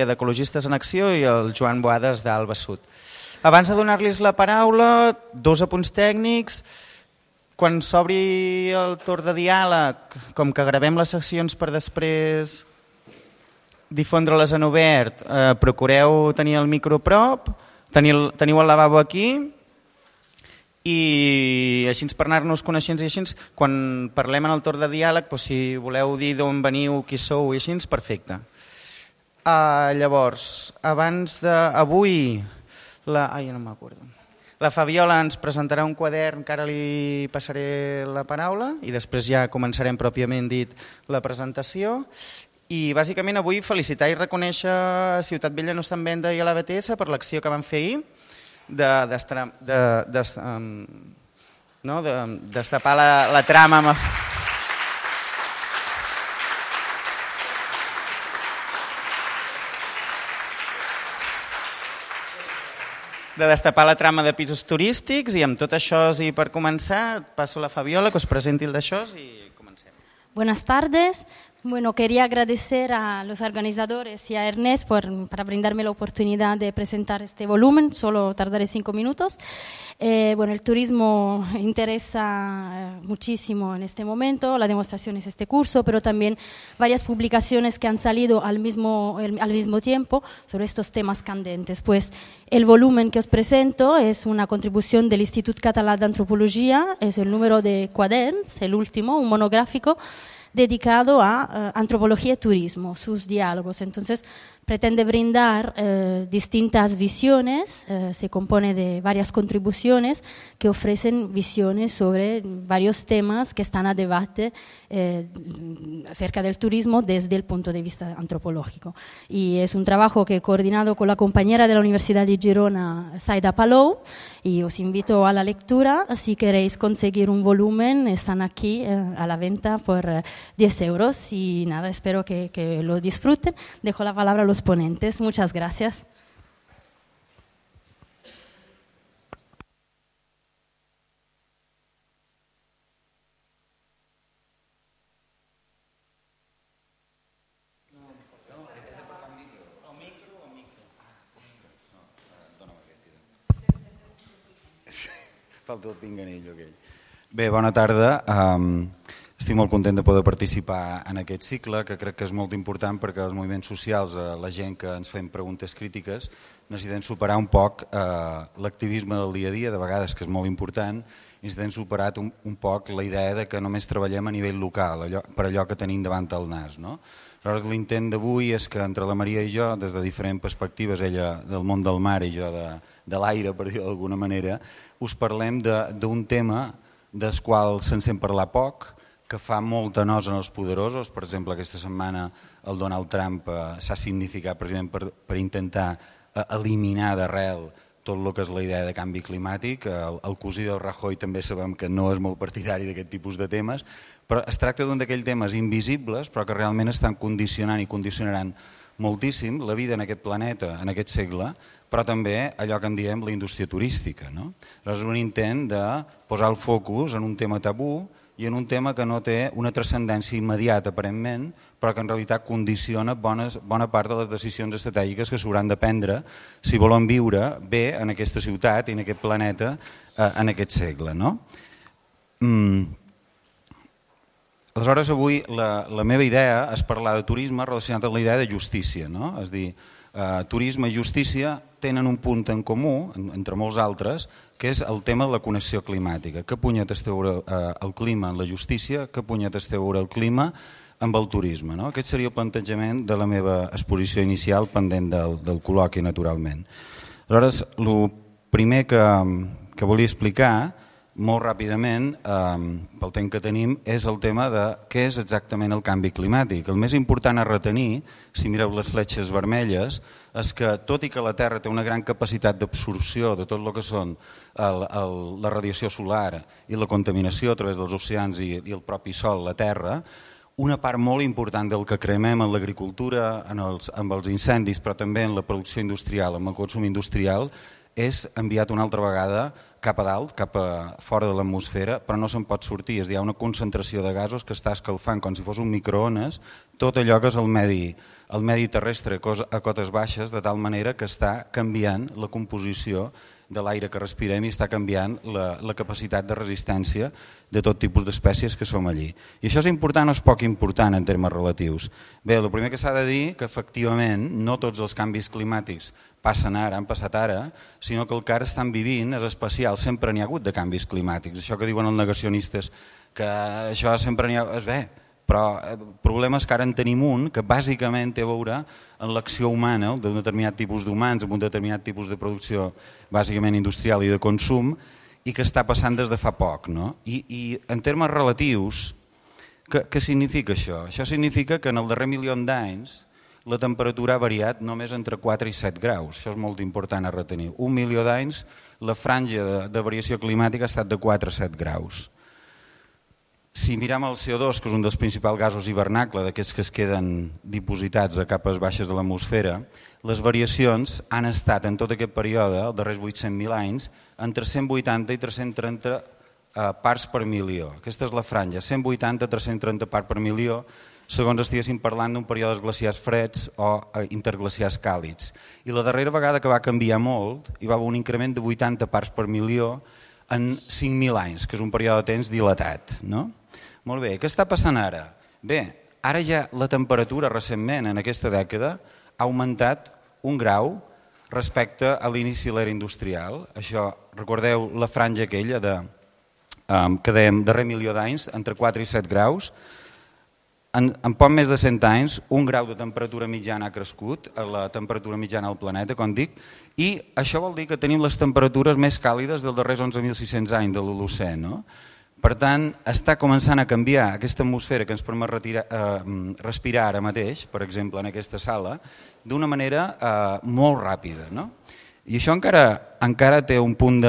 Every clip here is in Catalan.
d'Ecologistes en Acció i el Joan Boades d'Alba Sud. Abans de donar-los la paraula, 2 apunts tècnics. Quan s'obri el torn de diàleg, com que gravem les seccions per després difondre-les en obert, procureu tenir el micro a prop, teniu el lavabo aquí i així per anar-nos coneixents i així, quan parlem en el torn de diàleg, si voleu dir d'on veniu, qui sou i així, perfecte. Llavors, abans d'avui, la Fabiola ens presentarà un quadern que ara li passaré la paraula i després ja començarem pròpiament dit la presentació. I bàsicament avui felicitar i reconèixer a Ciutat Vella no està en venda i a la BTS per l'acció que van fer ahir de destapar la trama amb... de destapar la trama de pisos turístics i amb tot això i per començar passo a la Fabiola que us presenti el d'això i comencem. Buenas tardes. Bueno, quería agradecer a los organizadores y a Ernest para brindarme la oportunidad de presentar este volumen, solo tardaré 5 minutos. Bueno, el turismo interesa muchísimo en este momento, la demostración es este curso, pero también varias publicaciones que han salido al mismo tiempo sobre estos temas candentes. Pues el volumen que os presento es una contribución del Institut Català d'Antropologia, es el número de Quaderns, el último, un monográfico, dedicado a antropología y turismo, sus diálogos. Entonces, pretende brindar distintas visiones, se compone de varias contribuciones que ofrecen visiones sobre varios temas que están a debate acerca del turismo desde el punto de vista antropológico. Y es un trabajo que he coordinado con la compañera de la Universidad de Girona, Saida Palou, y os invito a la lectura. Si queréis conseguir un volumen, están aquí a la venta por 10 euros y nada, espero que lo disfruten. Dejo la palabra a los ponentes. Muchas gracias. Falta el pinganillo aquell. Bé, bona tarda. Estic molt content de poder participar en aquest cicle, que crec que és molt important perquè els moviments socials, la gent que ens fem preguntes crítiques, necessitem superar un poc l'activisme del dia a dia, de vegades que és molt important, i necessitem superar un poc la idea de que només treballem a nivell local, per allò que tenim davant del nas. Aleshores, l'intent d'avui és que entre la Maria i jo, des de diferents perspectives, ella del món del mar i jo de l'aire, per dir-ho d'alguna manera, us parlem d'un tema del qual se'n sent parlar poc, que fa molta nosa en els poderosos. Per exemple, aquesta setmana el Donald Trump s'ha significat precisament per intentar eliminar d'arrel tot el que és la idea de canvi climàtic. El cosí del Rajoy també sabem que no és molt partidari d'aquest tipus de temes, però es tracta d'un d'aquells temes invisibles però que realment estan condicionant i condicionaran moltíssim la vida en aquest planeta, en aquest segle, però també allò que en diem la indústria turística. És un intent de posar el focus en un tema tabú i en un tema que no té una transcendència immediata aparentment, però que en realitat condiciona bona part de les decisions estratègiques que s'hauran de prendre si volen viure bé en aquesta ciutat i en aquest planeta en aquest segle. Aleshores, avui la meva idea és parlar de turisme relacionat amb la idea de justícia. És a dir, turisme i justícia tenen un punt en comú, entre molts altres, que és el tema de la connexió climàtica. Què punyetes té a veure el clima en la justícia, què punyetes té a veure el clima amb el turisme. Aquest seria el plantejament de la meva exposició inicial pendent del col·loqui, naturalment. Aleshores, el primer que volia explicar molt ràpidament, pel temps que tenim, és el tema de què és exactament el canvi climàtic. El més important a retenir, si mireu les fletxes vermelles, és que tot i que la Terra té una gran capacitat d'absorció de tot el que són la radiació solar i la contaminació a través dels oceans i el propi sol, la Terra, una part molt important del que cremem en l'agricultura, amb els incendis, però també en la producció industrial, amb el consum industrial, és enviat una altra vegada cap a dalt, cap a fora de l'atmosfera, però no se'n pot sortir. És a dir, hi ha una concentració de gasos que està escalfant com si fos un microones tot allò que és el medi terrestre a cotes baixes, de tal manera que està canviant la composició de l'aire que respirem i està canviant la capacitat de resistència de tot tipus d'espècies que som allí. I això és important o és poc important en termes relatius? Bé, el primer que s'ha de dir que efectivament no tots els canvis climàtics passen ara, han passat ara, sinó que el que ara estan vivint és especial, sempre n'hi ha hagut de canvis climàtics. Això que diuen els negacionistes, que això sempre n'hi ha... És bé, però el problema és que ara en tenim un que bàsicament té a veure amb l'acció humana d'un determinat tipus d'humans, amb un determinat tipus de producció bàsicament industrial i de consum, i que està passant des de fa poc. No? I en termes relatius, què significa això? Això significa que en el darrer milió d'anys la temperatura ha variat només entre 4 i 7 graus. Això és molt important a retenir. Un milió d'anys la franja de variació climàtica ha estat de 4 a 7 graus. Si mirem el CO2, que és un dels principals gasos hivernacle, d'aquests que es queden dipositats a capes baixes de l'atmosfera, les variacions han estat en tot aquest període, els darrers 800.000 anys, entre 180 i 330 parts per milió. Aquesta és la franja, 180 a 330 parts per milió, segons estiguéssim parlant d'un període glaciars freds o interglaciars càlids. I la darrera vegada que va canviar molt, hi va haver un increment de 80 parts per milió en 5.000 anys, que és un període de temps dilatat. No? Molt bé, què està passant ara? Bé, ara ja la temperatura recentment, en aquesta dècada, ha augmentat 1 grau respecte a l'inici de l'era industrial. Això, recordeu la franja aquella que dèiem darrer milió d'anys, entre 4 i 7 graus. En poc més de 100 anys, 1 grau de temperatura mitjana ha crescut, la temperatura mitjana del planeta, com dic, i això vol dir que tenim les temperatures més càlides dels darrers 11.600 anys de l'Holocè. No? Per tant, està començant a canviar aquesta atmosfera que ens permet respirar ara mateix, per exemple, en aquesta sala, d'una manera molt ràpida. No? I això encara té un punt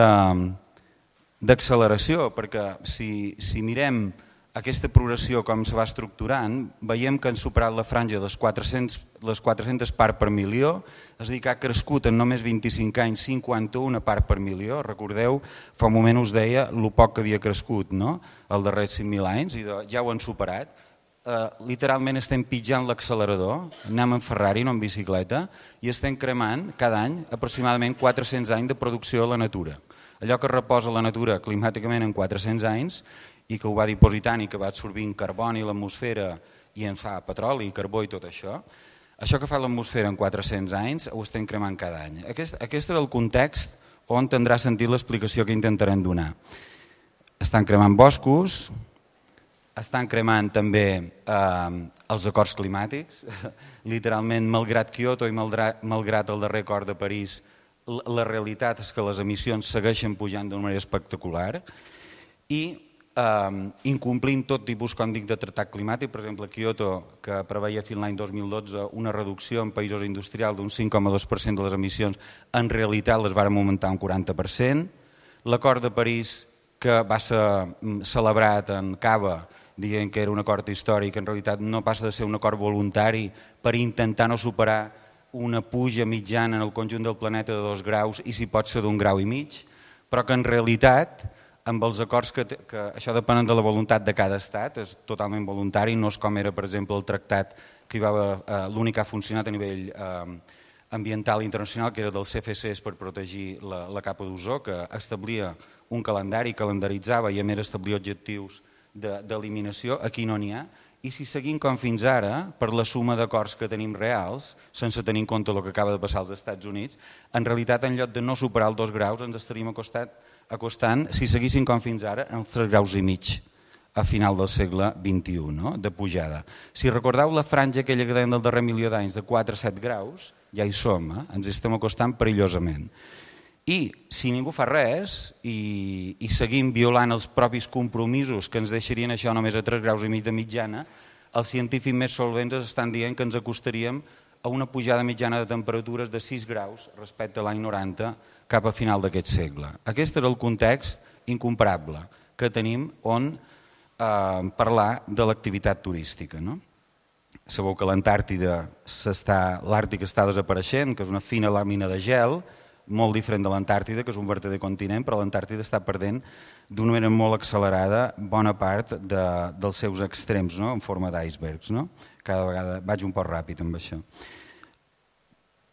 d'acceleració, perquè si mirem aquesta progressió com se va estructurant, veiem que han superat la franja de les 400 parts per milió, és a dir, que ha crescut en només 25 anys 51 parts per milió. Recordeu, fa un moment us deia el poc que havia crescut, no? Els darrers 5.000 anys, i ja ho han superat. Literalment estem pitjant l'accelerador, anem en Ferrari, no en bicicleta, i estem cremant cada any aproximadament 400 anys de producció a la natura. Allò que reposa la natura climàticament en 400 anys i que ho va dipositant i que va absorbint carboni a l'atmosfera i en fa petroli, carbó i tot això, això que fa l'atmosfera en 400 anys ho estem cremant cada any. Aquest és el context on tindrà sentit l'explicació que intentarem donar. Estan cremant boscos, estan cremant també els acords climàtics, literalment, malgrat Kyoto i malgrat el darrer acord de París, la realitat és que les emissions segueixen pujant d'una manera espectacular i incomplint tot tipus, com dic, de tractat climàtic. Per exemple, Kyoto, que preveia fins l'any 2012 una reducció en països industrials d'un 5,2% de les emissions, en realitat les varen augmentar un 40%. L'acord de París, que va ser celebrat en Cava, dient que era un acord històric, en realitat no passa de ser un acord voluntari per intentar no superar una puja mitjana en el conjunt del planeta de 2 graus i si pot ser d'1,5 graus, però que en realitat amb els acords que això depèn de la voluntat de cada estat, és totalment voluntari, no és com era, per exemple, el tractat que l'únic que ha funcionat a nivell ambiental internacional, que era dels CFCs per protegir la capa d'ozó, que establia un calendari, calendaritzava i a més establia objectius d'eliminació. Aquí no n'hi ha. I si seguim com fins ara, per la suma d'acords que tenim reals, sense tenir en compte el que acaba de passar als Estats Units, en realitat, en lloc de no superar els 2 graus, ens estaríem acostant, si seguíssim com fins ara, els 3,5 graus a final del segle XXI, no? De pujada. Si recordeu la franja aquella que dèiem del darrer milió d'anys, de 4 a 7 graus, ja hi som, ens estem acostant perillosament. I si ningú fa res i seguim violant els propis compromisos que ens deixarien això només a 3,5 graus de mitjana, els científics més solvents estan dient que ens acostaríem a una pujada mitjana de temperatures de 6 graus respecte a l'any 90 cap a final d'aquest segle. Aquest és el context incomparable que tenim on parlar de l'activitat turística. No? Sabeu que l'Antàrtida l'Àrtic està desapareixent, que és una fina làmina de gel, molt diferent de l'Antàrtida, que és un verdader continent, però l'Antàrtida està perdent d'una manera molt accelerada bona part dels seus extrems, no? En forma d'icebergs. No? Cada vegada vaig un poc ràpid amb això.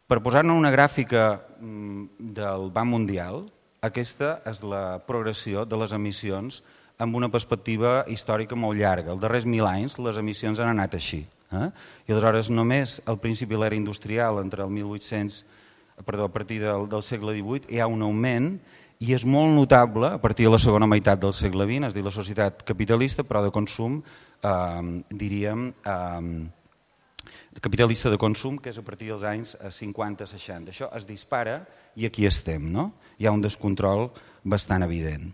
Per posar-ne una gràfica del Banc Mundial, aquesta és la progressió de les emissions amb una perspectiva històrica molt llarga. Els darrers 1.000 anys les emissions han anat així. I aleshores només al principi de l'era industrial, entre el 1800, a partir del segle XVIII, hi ha un augment i és molt notable a partir de la segona meitat del segle XX, és a dir, la societat capitalista, però de consum, diríem, capitalista de consum, que és a partir dels anys 50-60. Això es dispara i aquí estem, no? Hi ha un descontrol bastant evident.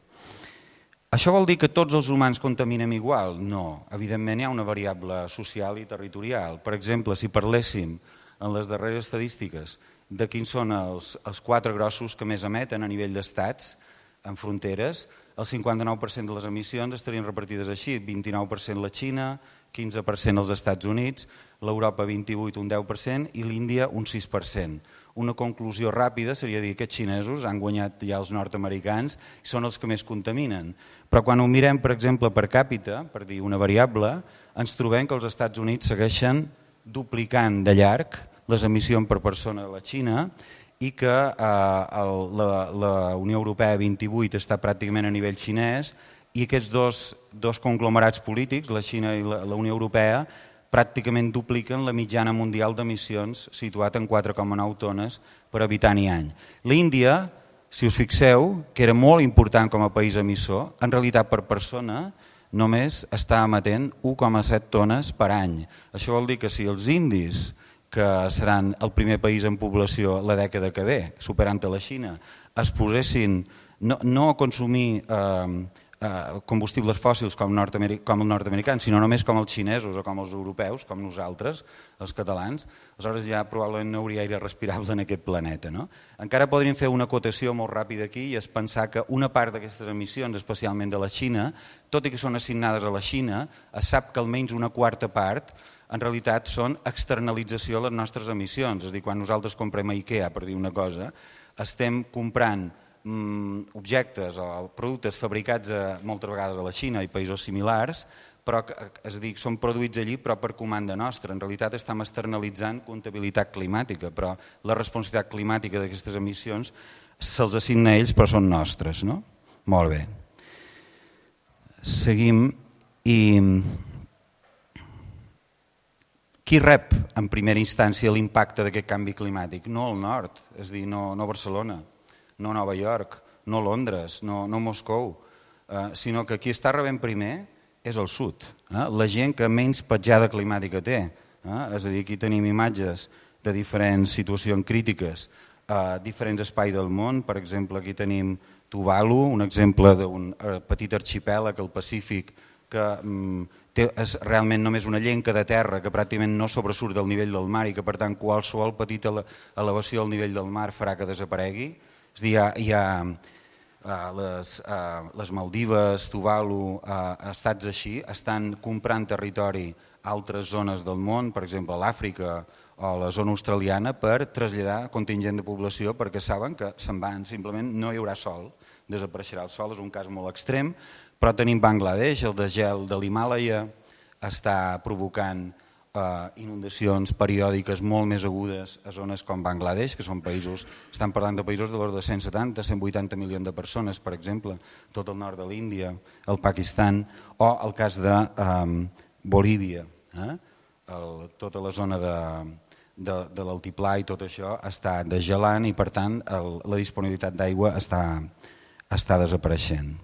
Això vol dir que tots els humans contaminem igual? No, evidentment hi ha una variable social i territorial. Per exemple, si parléssim en les darreres estadístiques de quins són els 4 grossos que més emeten a nivell d'estats en fronteres, el 59% de les emissions estarien repartides així, 29% la Xina, 15% els Estats Units, l'Europa 28% un 10% i l'Índia un 6%. Una conclusió ràpida seria dir que els xinesos han guanyat ja els nord-americans i són els que més contaminen. Però quan ho mirem, per exemple, per càpita, per dir una variable, ens trobem que els Estats Units segueixen duplicant de llarg les emissions per persona de la Xina i que la Unió Europea 28 està pràcticament a nivell xinès i aquests dos conglomerats polítics, la Xina i la Unió Europea, pràcticament dupliquen la mitjana mundial d'emissions situat en 4,9 tones per habitant i any. L'Índia, si us fixeu, que era molt important com a país emissor, en realitat per persona només està emetent 1,7 tones per any. Això vol dir que si els indis, que seran el primer país en població la dècada que ve, superant a la Xina, es posessin no a consumir combustibles fòssils com els nord-americans, sinó només com els xinesos o com els europeus, com nosaltres, els catalans, aleshores ja probablement no hauria aire respirable en aquest planeta. No? Encara podríem fer una acotació molt ràpida aquí i és pensar que una part d'aquestes emissions, especialment de la Xina, tot i que són assignades a la Xina, es sap que almenys una quarta part en realitat són externalització de les nostres emissions. És a dir, quan nosaltres comprem a IKEA, per dir una cosa, estem comprant objectes o productes fabricats moltes vegades a la Xina i països similars, però és a dir, són produïts allí però per comanda nostra. En realitat estem externalitzant comptabilitat climàtica, però la responsabilitat climàtica d'aquestes emissions se'ls assigna a ells però són nostres. No? Molt bé. Seguim i... Qui rep en primera instància l'impacte d'aquest canvi climàtic? No el nord, és a dir, no Barcelona, no Nova York, no Londres, no Moscou, sinó que qui està rebent primer és el sud, la gent que menys petjada climàtica té. És a dir, aquí tenim imatges de diferents situacions crítiques a diferents espais del món. Per exemple, aquí tenim Tuvalu, un exemple d'un petit arxipèlag al Pacífic que és realment només una llenca de terra que pràcticament no sobresurt del nivell del mar i que per tant qualsevol petita elevació al nivell del mar farà que desaparegui. És a dir, hi ha les Maldives, Tuvalu, estats així, estan comprant territori a altres zones del món, per exemple a l'Àfrica o a la zona australiana, per traslladar contingent de població perquè saben que se'n van, simplement no hi haurà sol, desapareixerà el sol, és un cas molt extrem. Però tenim Bangladesh, el desgel de l'Himàlaia està provocant inundacions periòdiques molt més agudes a zones com Bangladesh, que són països, estan parlant de països de l'ordre de 170-180 milions de persones, per exemple, tot el nord de l'Índia, el Pakistan, o el cas de Bolívia. Tota la zona de l'altiplà i tot això està desgelant i per tant la disponibilitat d'aigua està desapareixent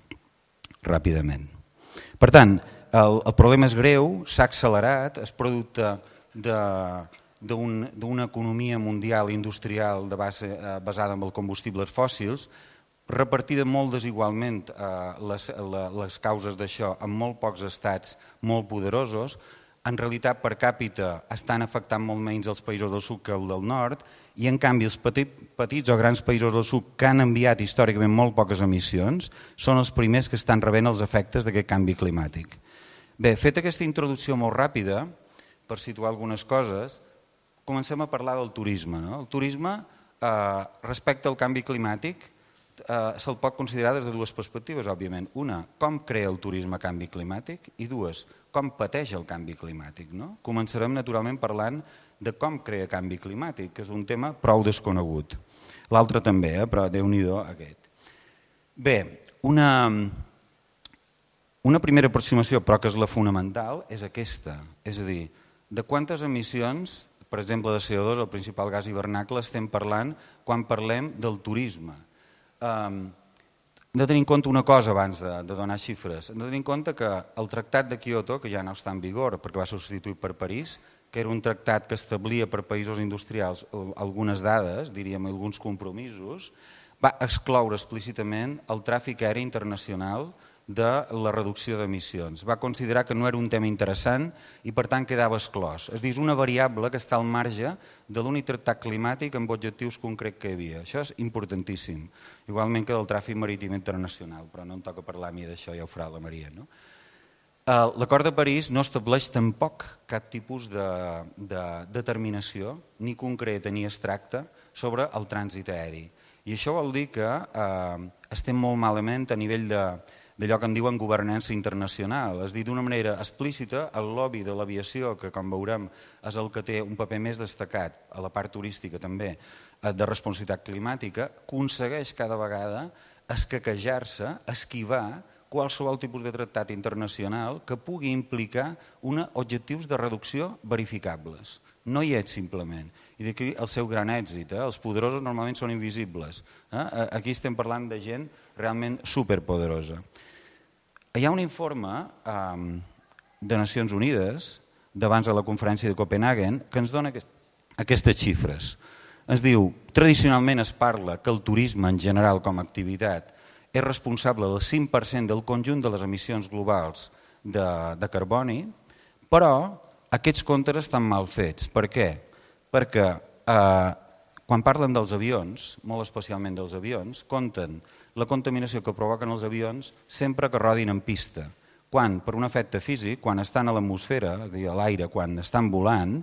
ràpidament. Per tant, el problema és greu, s'ha accelerat, és producte d'una economia mundial industrial basada en els combustibles fòssils, repartida molt desigualment les causes d'això en molt pocs estats molt poderosos. En realitat, per càpita, estan afectant molt menys els països del sud que el del nord i, en canvi, els petits o grans països del sud que han enviat històricament molt poques emissions són els primers que estan rebent els efectes d'aquest canvi climàtic. Bé, feta aquesta introducció molt ràpida, per situar algunes coses, comencem a parlar del turisme. El turisme respecte al canvi climàtic se'l pot considerar des de dues perspectives, òbviament. Una, com crea el turisme canvi climàtic, i dues, com pateix el canvi climàtic. Començarem naturalment parlant de com crea canvi climàtic, que és un tema prou desconegut. L'altre també, però Déu-n'hi-do aquest. Bé, una primera aproximació, però que és la fonamental, és aquesta. És a dir, de quantes emissions, per exemple de CO2, el principal gas hivernacle, estem parlant quan parlem del turisme. Hem de tenir en compte una cosa abans de donar xifres. Hem de tenir en compte que el Tractat de Kyoto, que ja no està en vigor perquè va ser substituït per París, que era un tractat que establia per països industrials algunes dades, diríem alguns compromisos, va excloure explícitament el tràfic aeri internacional de la reducció d'emissions. Va considerar que no era un tema interessant i per tant quedava exclòs. És a dir, és una variable que està al marge de l'únic tractat climàtic amb objectius concrets que hi havia. Això és importantíssim, igualment que del tràfic marítim internacional, però no em toca parlar a mi d'això, ja ho farà la Maria. L'Acord de París no estableix tampoc cap tipus de determinació, ni concreta ni abstracta, sobre el trànsit aeri. I això vol dir que estem molt malament a nivell d'allò que en diuen governança internacional. És a dir, d'una manera explícita, el lobby de l'aviació, que com veurem és el que té un paper més destacat, a la part turística també, de responsabilitat climàtica, aconsegueix cada vegada escaquejar-se, esquivar qualsevol tipus de tractat internacional que pugui implicar objectius de reducció verificables. No hi és simplement. I d'aquí el seu gran èxit. Els poderosos normalment són invisibles. Aquí estem parlant de gent realment superpoderosa. Hi ha un informe de Nacions Unides d'abans de la conferència de Copenhagen que ens dona aquestes xifres. Ens diu, tradicionalment es parla que el turisme en general com a activitat és responsable del 5% del conjunt de les emissions globals de carboni, però aquests comptes estan mal fets. Per què? Perquè quan parlen dels avions, molt especialment dels avions, compten la contaminació que provoquen els avions sempre que rodin en pista. Quan, per un efecte físic, quan estan a l'atmosfera, és a dir, a l'aire, quan estan volant,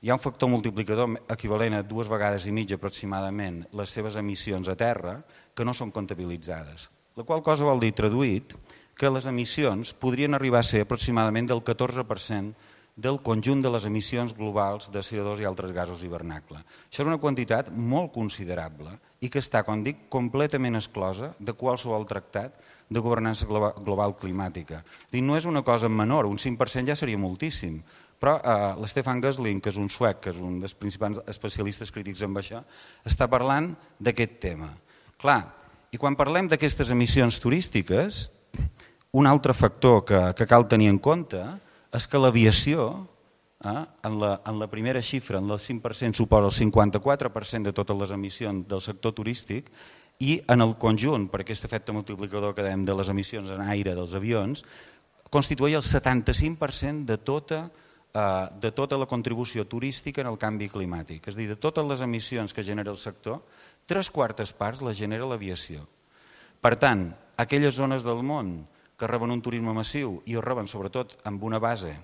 hi ha un factor multiplicador equivalent a 2,5 vegades aproximadament les seves emissions a terra que no són comptabilitzades. La qual cosa vol dir, traduït, que les emissions podrien arribar a ser aproximadament del 14% del conjunt de les emissions globals de CO2 i altres gasos hivernacle. Això és una quantitat molt considerable i que està, com dic, completament exclosa de qualsevol tractat de governança global climàtica. No és una cosa menor, un 5% ja seria moltíssim, però l'Stefan Gössling, que és un suec, que és un dels principals especialistes crítics en això, està parlant d'aquest tema. Clar, i quan parlem d'aquestes emissions turístiques, un altre factor que cal tenir en compte és que l'aviació, en la primera xifra, en el 5%, suposa el 54% de totes les emissions del sector turístic i en el conjunt, per aquest efecte multiplicador que dèiem de les emissions en aire dels avions, constitueix el 75% de tota la contribució turística en el canvi climàtic. És a dir, de totes les emissions que genera el sector, 3/4 parts les genera l'aviació. Per tant, aquelles zones del món que reben un turisme massiu i ho reben sobretot amb una base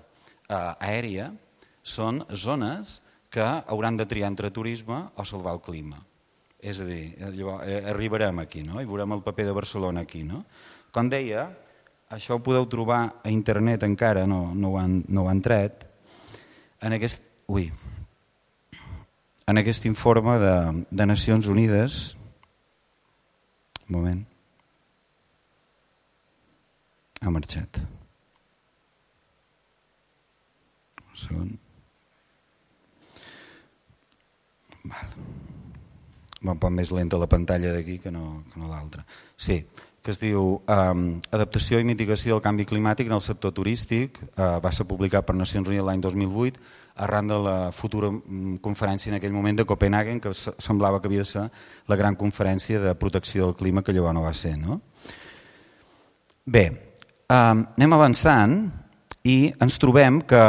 aèria, són zones que hauran de triar entre turisme o salvar el clima. És a dir, arribarem aquí, i veurem el paper de Barcelona aquí. Com deia, això ho podeu trobar a internet encara, no ho han tret, en aquest informe de Nacions Unides. Un moment. Ha marxat. Un segon. Va un poc més lenta la pantalla d'aquí que no l'altra. Sí, que es diu Adaptació i mitigació del canvi climàtic en el sector turístic. Va ser publicat per Nacions Unides l'any 2008 arran de la futura conferència en aquell moment de Copenhagen, que semblava que havia de ser la gran conferència de protecció del clima, que llavors no va ser. Bé, anem avançant i ens trobem que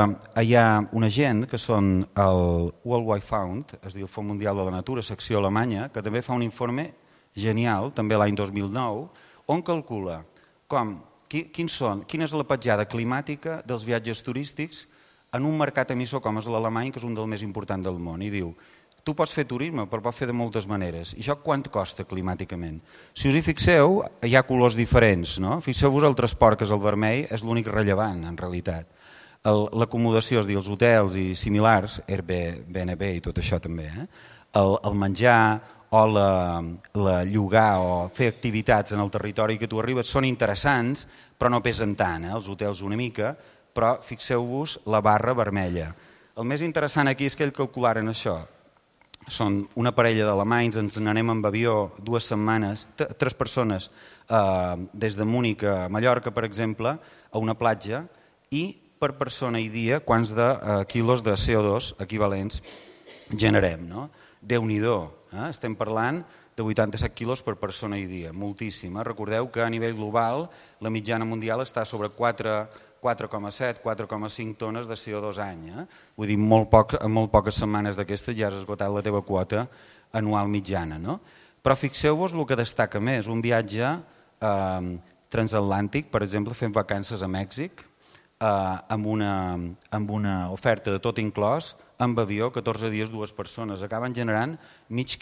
hi ha una gent que són el World Wide Fund, és a dir, el Fons Mundial de la Natura, secció alemanya, que també fa un informe genial, també l'any 2009, on calcula quina és la petjada climàtica dels viatges turístics en un mercat emissor com és l'alemany, que és un dels més importants del món. I diu, tu pots fer turisme, però pots fer de moltes maneres. I això quant costa climàticament? Si us hi fixeu, hi ha colors diferents. No? Fixeu-vos el transport, que és el vermell, és l'únic rellevant, en realitat. L'acomodació, és a dir, els hotels i similars, Airbnb i tot això també, el menjar o la llogar o fer activitats en el territori que tu arribes són interessants, però no pesen tant, els hotels una mica, però fixeu-vos la barra vermella. El més interessant aquí és que ells calcularen això. Són una parella d'alemanys, ens n'anem amb avió 2 setmanes, 3 persones, des de Múnich a Mallorca, per exemple, a una platja, i per persona i dia quants de quilos de CO2 equivalents generem. No? Déu-n'hi-do, estem parlant de 87 quilos per persona i dia, moltíssim. Recordeu que a nivell global la mitjana mundial està sobre 4,7, 4,5 tones de CO2 any. Vull dir, en molt poques setmanes d'aquestes ja has esgotat la teva quota anual mitjana. No? Però fixeu-vos el que destaca més, un viatge transatlàntic, per exemple, fent vacances a Mèxic, amb una oferta de tot inclòs, amb avió, 14 dies, 2 persones. Acaben generant mitja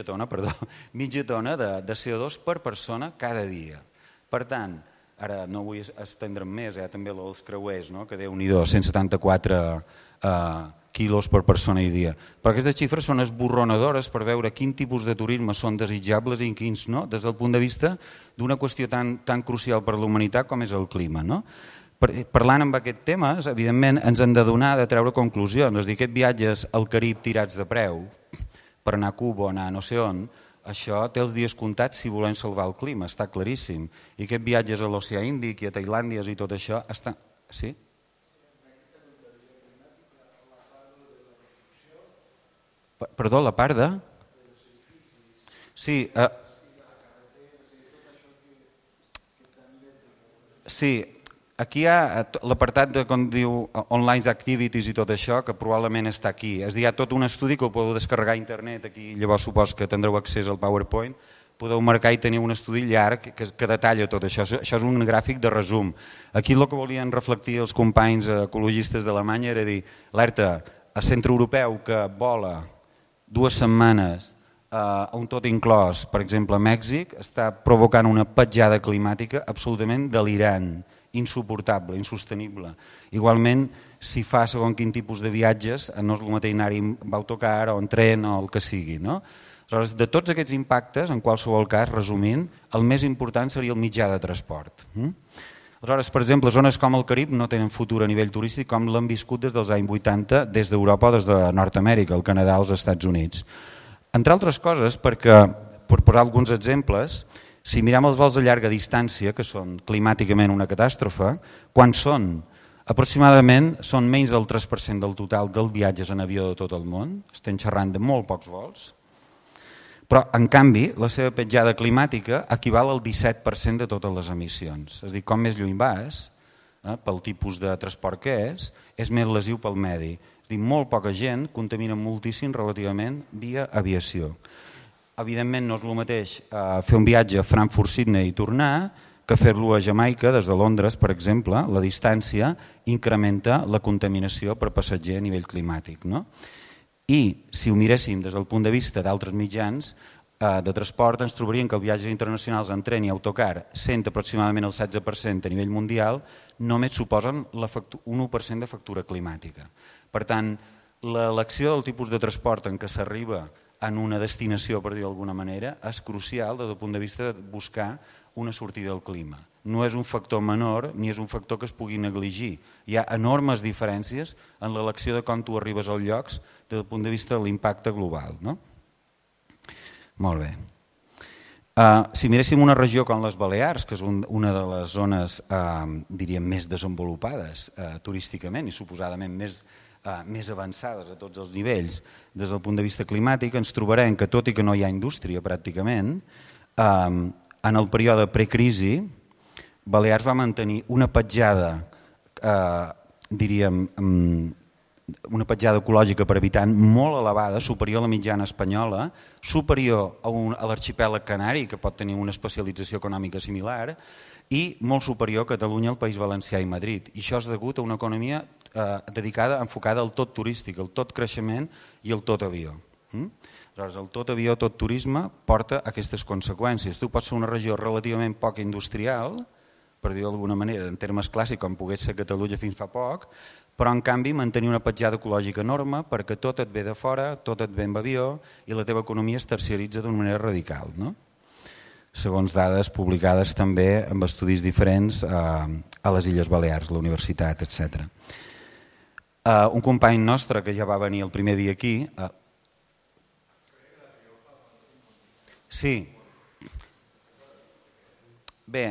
tona de CO2 per persona cada dia. Per tant, ara no vull estendre'm més, també els creuers, no? Que Déu-n'hi-do, 174 quilos per persona i dia. Però aquestes xifres són esborronadores per veure quin tipus de turisme són desitjables i quins no, des del punt de vista d'una qüestió tan crucial per a la humanitat com és el clima. No? Parlant amb aquests temes, evidentment, ens hem de donar de treure conclusions. És a dir, aquests viatges al Carib tirats de preu, per anar a Cuba o anar a no sé on, això té els dies comptats si volem salvar el clima, està claríssim. I aquests viatges a l'Oceà Índic i a Tailàndia i tot això està... Sí? Perdó, la part de... Sí, aquí hi ha l'apartat de com diu Online Activities i tot això, que probablement està aquí. És a dir, hi ha tot un estudi que ho podeu descarregar a internet, aquí llavors supos que tindreu accés al PowerPoint, podeu marcar i tenir un estudi llarg que detalla tot això. Això és un gràfic de resum. Aquí el que volien reflectir els companys ecologistes d'Alemanya era dir, alerta, a centre europeu que vola 2 setmanes a un tot inclòs, per exemple a Mèxic, està provocant una petjada climàtica absolutament delirant, insuportable, insostenible. Igualment, si fa segons quin tipus de viatges, no és el mateix anar-hi amb autocar o en tren o el que sigui. No? Aleshores, de tots aquests impactes, en qualsevol cas, resumint, el més important seria el mitjà de transport. Aleshores, per exemple, zones com el Carib no tenen futur a nivell turístic com l'han viscut des dels anys 80 des d'Europa o des de Nord-Amèrica, el Canadà o els Estats Units. Entre altres coses, perquè, per posar alguns exemples, si mirem els vols de llarga distància, que són climàticament una catàstrofe, quan són? Aproximadament són menys del 3% del total dels viatges en avió de tot el món, estem xerrant de molt pocs vols, però, en canvi, la seva petjada climàtica equival al 17% de totes les emissions. És a dir, com més lluny vas, pel tipus de transport que és més lesiu pel medi. És a dir, molt poca gent contamina moltíssim relativament via aviació. Evidentment, no és el mateix fer un viatge a Frankfurt-Sydney i tornar que fer-lo a Jamaica, des de Londres, per exemple. La distància incrementa la contaminació per passatger a nivell climàtic. No? I si ho miréssim des del punt de vista d'altres mitjans de transport, ens trobaríem que els viatges internacionals en tren i autocar, sent aproximadament el 16% a nivell mundial, només suposen un 1% de factura climàtica. Per tant, l'elecció del tipus de transport en què s'arriba en una destinació, per dir d'alguna manera, és crucial des del punt de vista de buscar una sortida al clima. No és un factor menor ni és un factor que es pugui negligir. Hi ha enormes diferències en l'elecció de com tu arribes als llocs des del punt de vista de l'impacte global. No? Molt bé. Si miréssim una regió com les Balears, que és una de les zones diríem més desenvolupades turísticament i suposadament més avançades a tots els nivells des del punt de vista climàtic, ens trobarem que tot i que no hi ha indústria pràcticament, en el període precrisi Balears va mantenir una petjada, diríem, una petjada ecològica per habitant molt elevada, superior a la mitjana espanyola, superior a l'arxipèlag canari, que pot tenir una especialització econòmica similar, i molt superior a Catalunya, el País Valencià i Madrid. I això és degut a una economia enfocada al tot turístic, al tot creixement i al tot avió. Aleshores, el tot avió, tot turisme porta aquestes conseqüències. Tu pots ser una regió relativament poc industrial, per dir-ho d'alguna manera, en termes clàssics, com pogués ser Catalunya fins fa poc, però en canvi mantenir una petjada ecològica enorme perquè tot et ve de fora, tot et ve amb avió i la teva economia es terciaritza d'una manera radical, no? Segons dades publicades també amb estudis diferents a les Illes Balears, la universitat, etc. Un company nostre que ja va venir el primer dia aquí... Sí. Bé,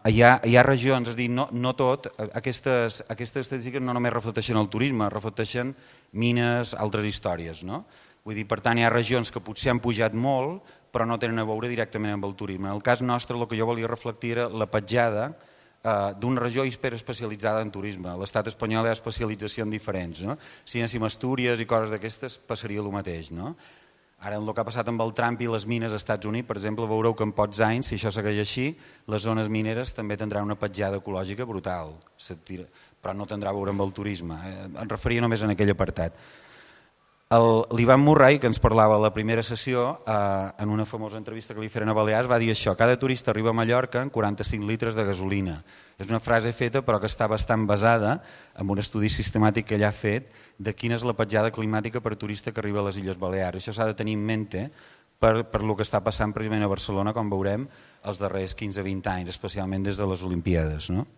hi ha regions, és a dir, no tot, aquestes estadístiques no només reflecteixen el turisme, reflecteixen mines, altres històries, no? Vull dir, per tant, hi ha regions que potser han pujat molt, però no tenen a veure directament amb el turisme. En el cas nostre, el que jo volia reflectir era la petjada d'una regió hiperespecialitzada en turisme. A l'estat espanyol hi ha especialitzacions diferents, no? Si anéssim a Astúries i coses d'aquestes, passaria el mateix, no? Ara, el que ha passat amb el Trump i les mines als Estats Units, per exemple, veureu que en pocs anys, si això segueix així, les zones mineres també tindran una petjada ecològica brutal, però no tindrà a veure amb el turisme. Em referia només en aquell apartat. L'Ivan Murray, que ens parlava a la primera sessió, en una famosa entrevista que li feren a Balears, va dir això: cada turista arriba a Mallorca amb 45 litres de gasolina. És una frase feta però que està bastant basada en un estudi sistemàtic que ell ha fet de quina és la petjada climàtica per turista que arriba a les Illes Balears. Això s'ha de tenir en mente per el que està passant precisament a Barcelona, com veurem, els darrers 15-20 anys, especialment des de les Olimpíades. No?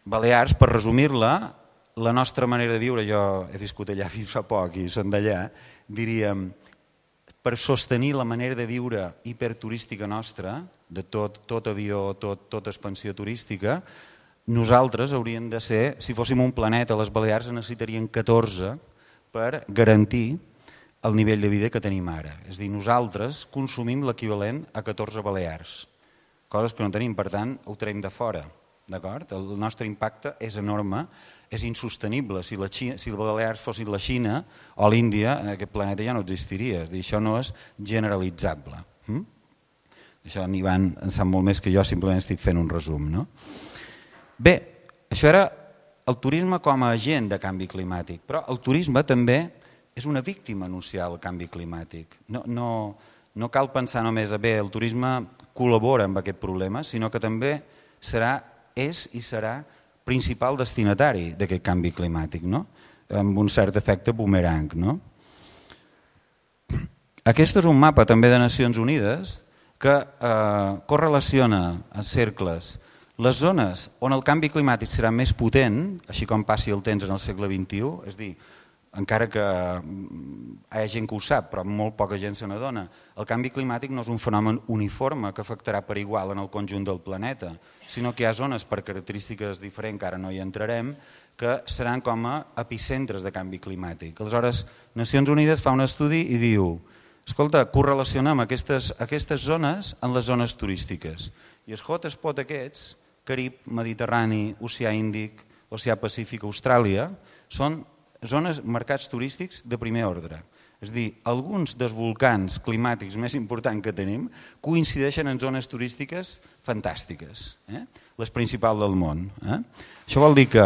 Balears, per resumir-la, la nostra manera de viure, jo he viscut allà fins fa poc i són d'allà, diríem, per sostenir la manera de viure hiperturística nostra, de tot avió, tota expansió turística, nosaltres hauríem de ser, si fóssim un planeta, les Balears necessitaríem 14 per garantir el nivell de vida que tenim ara. És a dir, nosaltres consumim l'equivalent a 14 Balears, coses que no tenim, per tant, ho traiem de fora. El nostre impacte és enorme, és insostenible. Si les Balears fossin la Xina o l'Índia, aquest planeta ja no existiria. És a dir, això no és generalitzable. Això en Ivan en sap molt més que jo, simplement estic fent un resum. No? Bé, això era el turisme com a agent de canvi climàtic, però el turisme també és una víctima anunciada del canvi climàtic. No cal pensar només a bé, el turisme col·labora amb aquest problema, sinó que també és i serà principal destinatari d'aquest canvi climàtic, no? Amb un cert efecte boomerang. No? Aquest és un mapa també de Nacions Unides que correlaciona en cercles les zones on el canvi climàtic serà més potent, així com passi el temps en el segle XXI, és a dir, encara que hi ha gent que ho sap, però molt poca gent se n'adona, el canvi climàtic no és un fenomen uniforme que afectarà per igual en el conjunt del planeta, sinó que hi ha zones per característiques diferents, que ara no hi entrarem, que seran com a epicentres de canvi climàtic. Aleshores, Nacions Unides fa un estudi i diu: escolta, correlacionem aquestes zones en les zones turístiques. I els hotspots aquests, Carib, Mediterrani, Oceà Índic, Oceà Pacífic, Austràlia, són zones, mercats turístics de primer ordre. És a dir, alguns dels volcans climàtics més importants que tenim coincideixen en zones turístiques fantàstiques, les principals del món. Això vol dir que,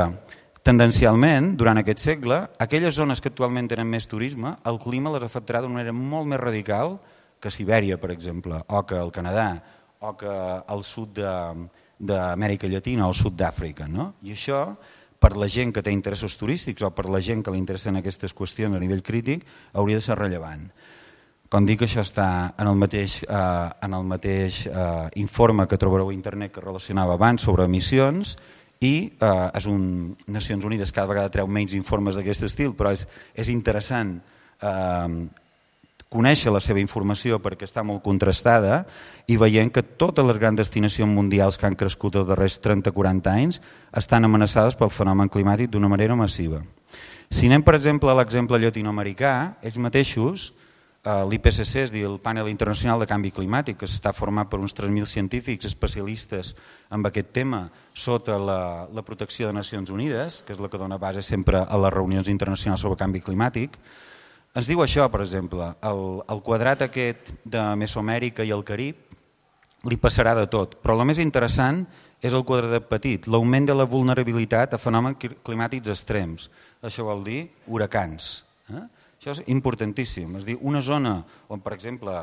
tendencialment, durant aquest segle, aquelles zones que actualment tenen més turisme, el clima les afectarà d'una manera molt més radical que Sibèria, per exemple, o que el Canadà, o que el sud d'Amèrica Llatina o el sud d'Àfrica. I això, per la gent que té interessos turístics o per la gent que li interessen aquestes qüestions a nivell crític, hauria de ser rellevant. Com dic, això està en el mateix informe que trobareu a internet que relacionava abans sobre emissions i Nacions Unides cada vegada treu menys informes d'aquest estil, però és interessant conèixer la seva informació perquè està molt contrastada i veient que totes les grans destinacions mundials que han crescut els darrers 30-40 anys estan amenaçades pel fenomen climàtic d'una manera massiva. Si anem, per exemple, a l'exemple llatinoamericà, ells mateixos, l'IPCC, és a dir, el Panel Internacional de Canvi Climàtic, que està format per uns 3.000 científics especialistes en aquest tema sota la protecció de Nacions Unides, que és la que dona base sempre a les reunions internacionals sobre canvi climàtic, ens diu això, per exemple, el quadrat aquest de Mesoamèrica i el Carib li passarà de tot, però el més interessant és el quadradet petit, l'augment de la vulnerabilitat a fenòmens climàtics extrems. Això vol dir huracans. Això és importantíssim. És a dir, una zona on, per exemple,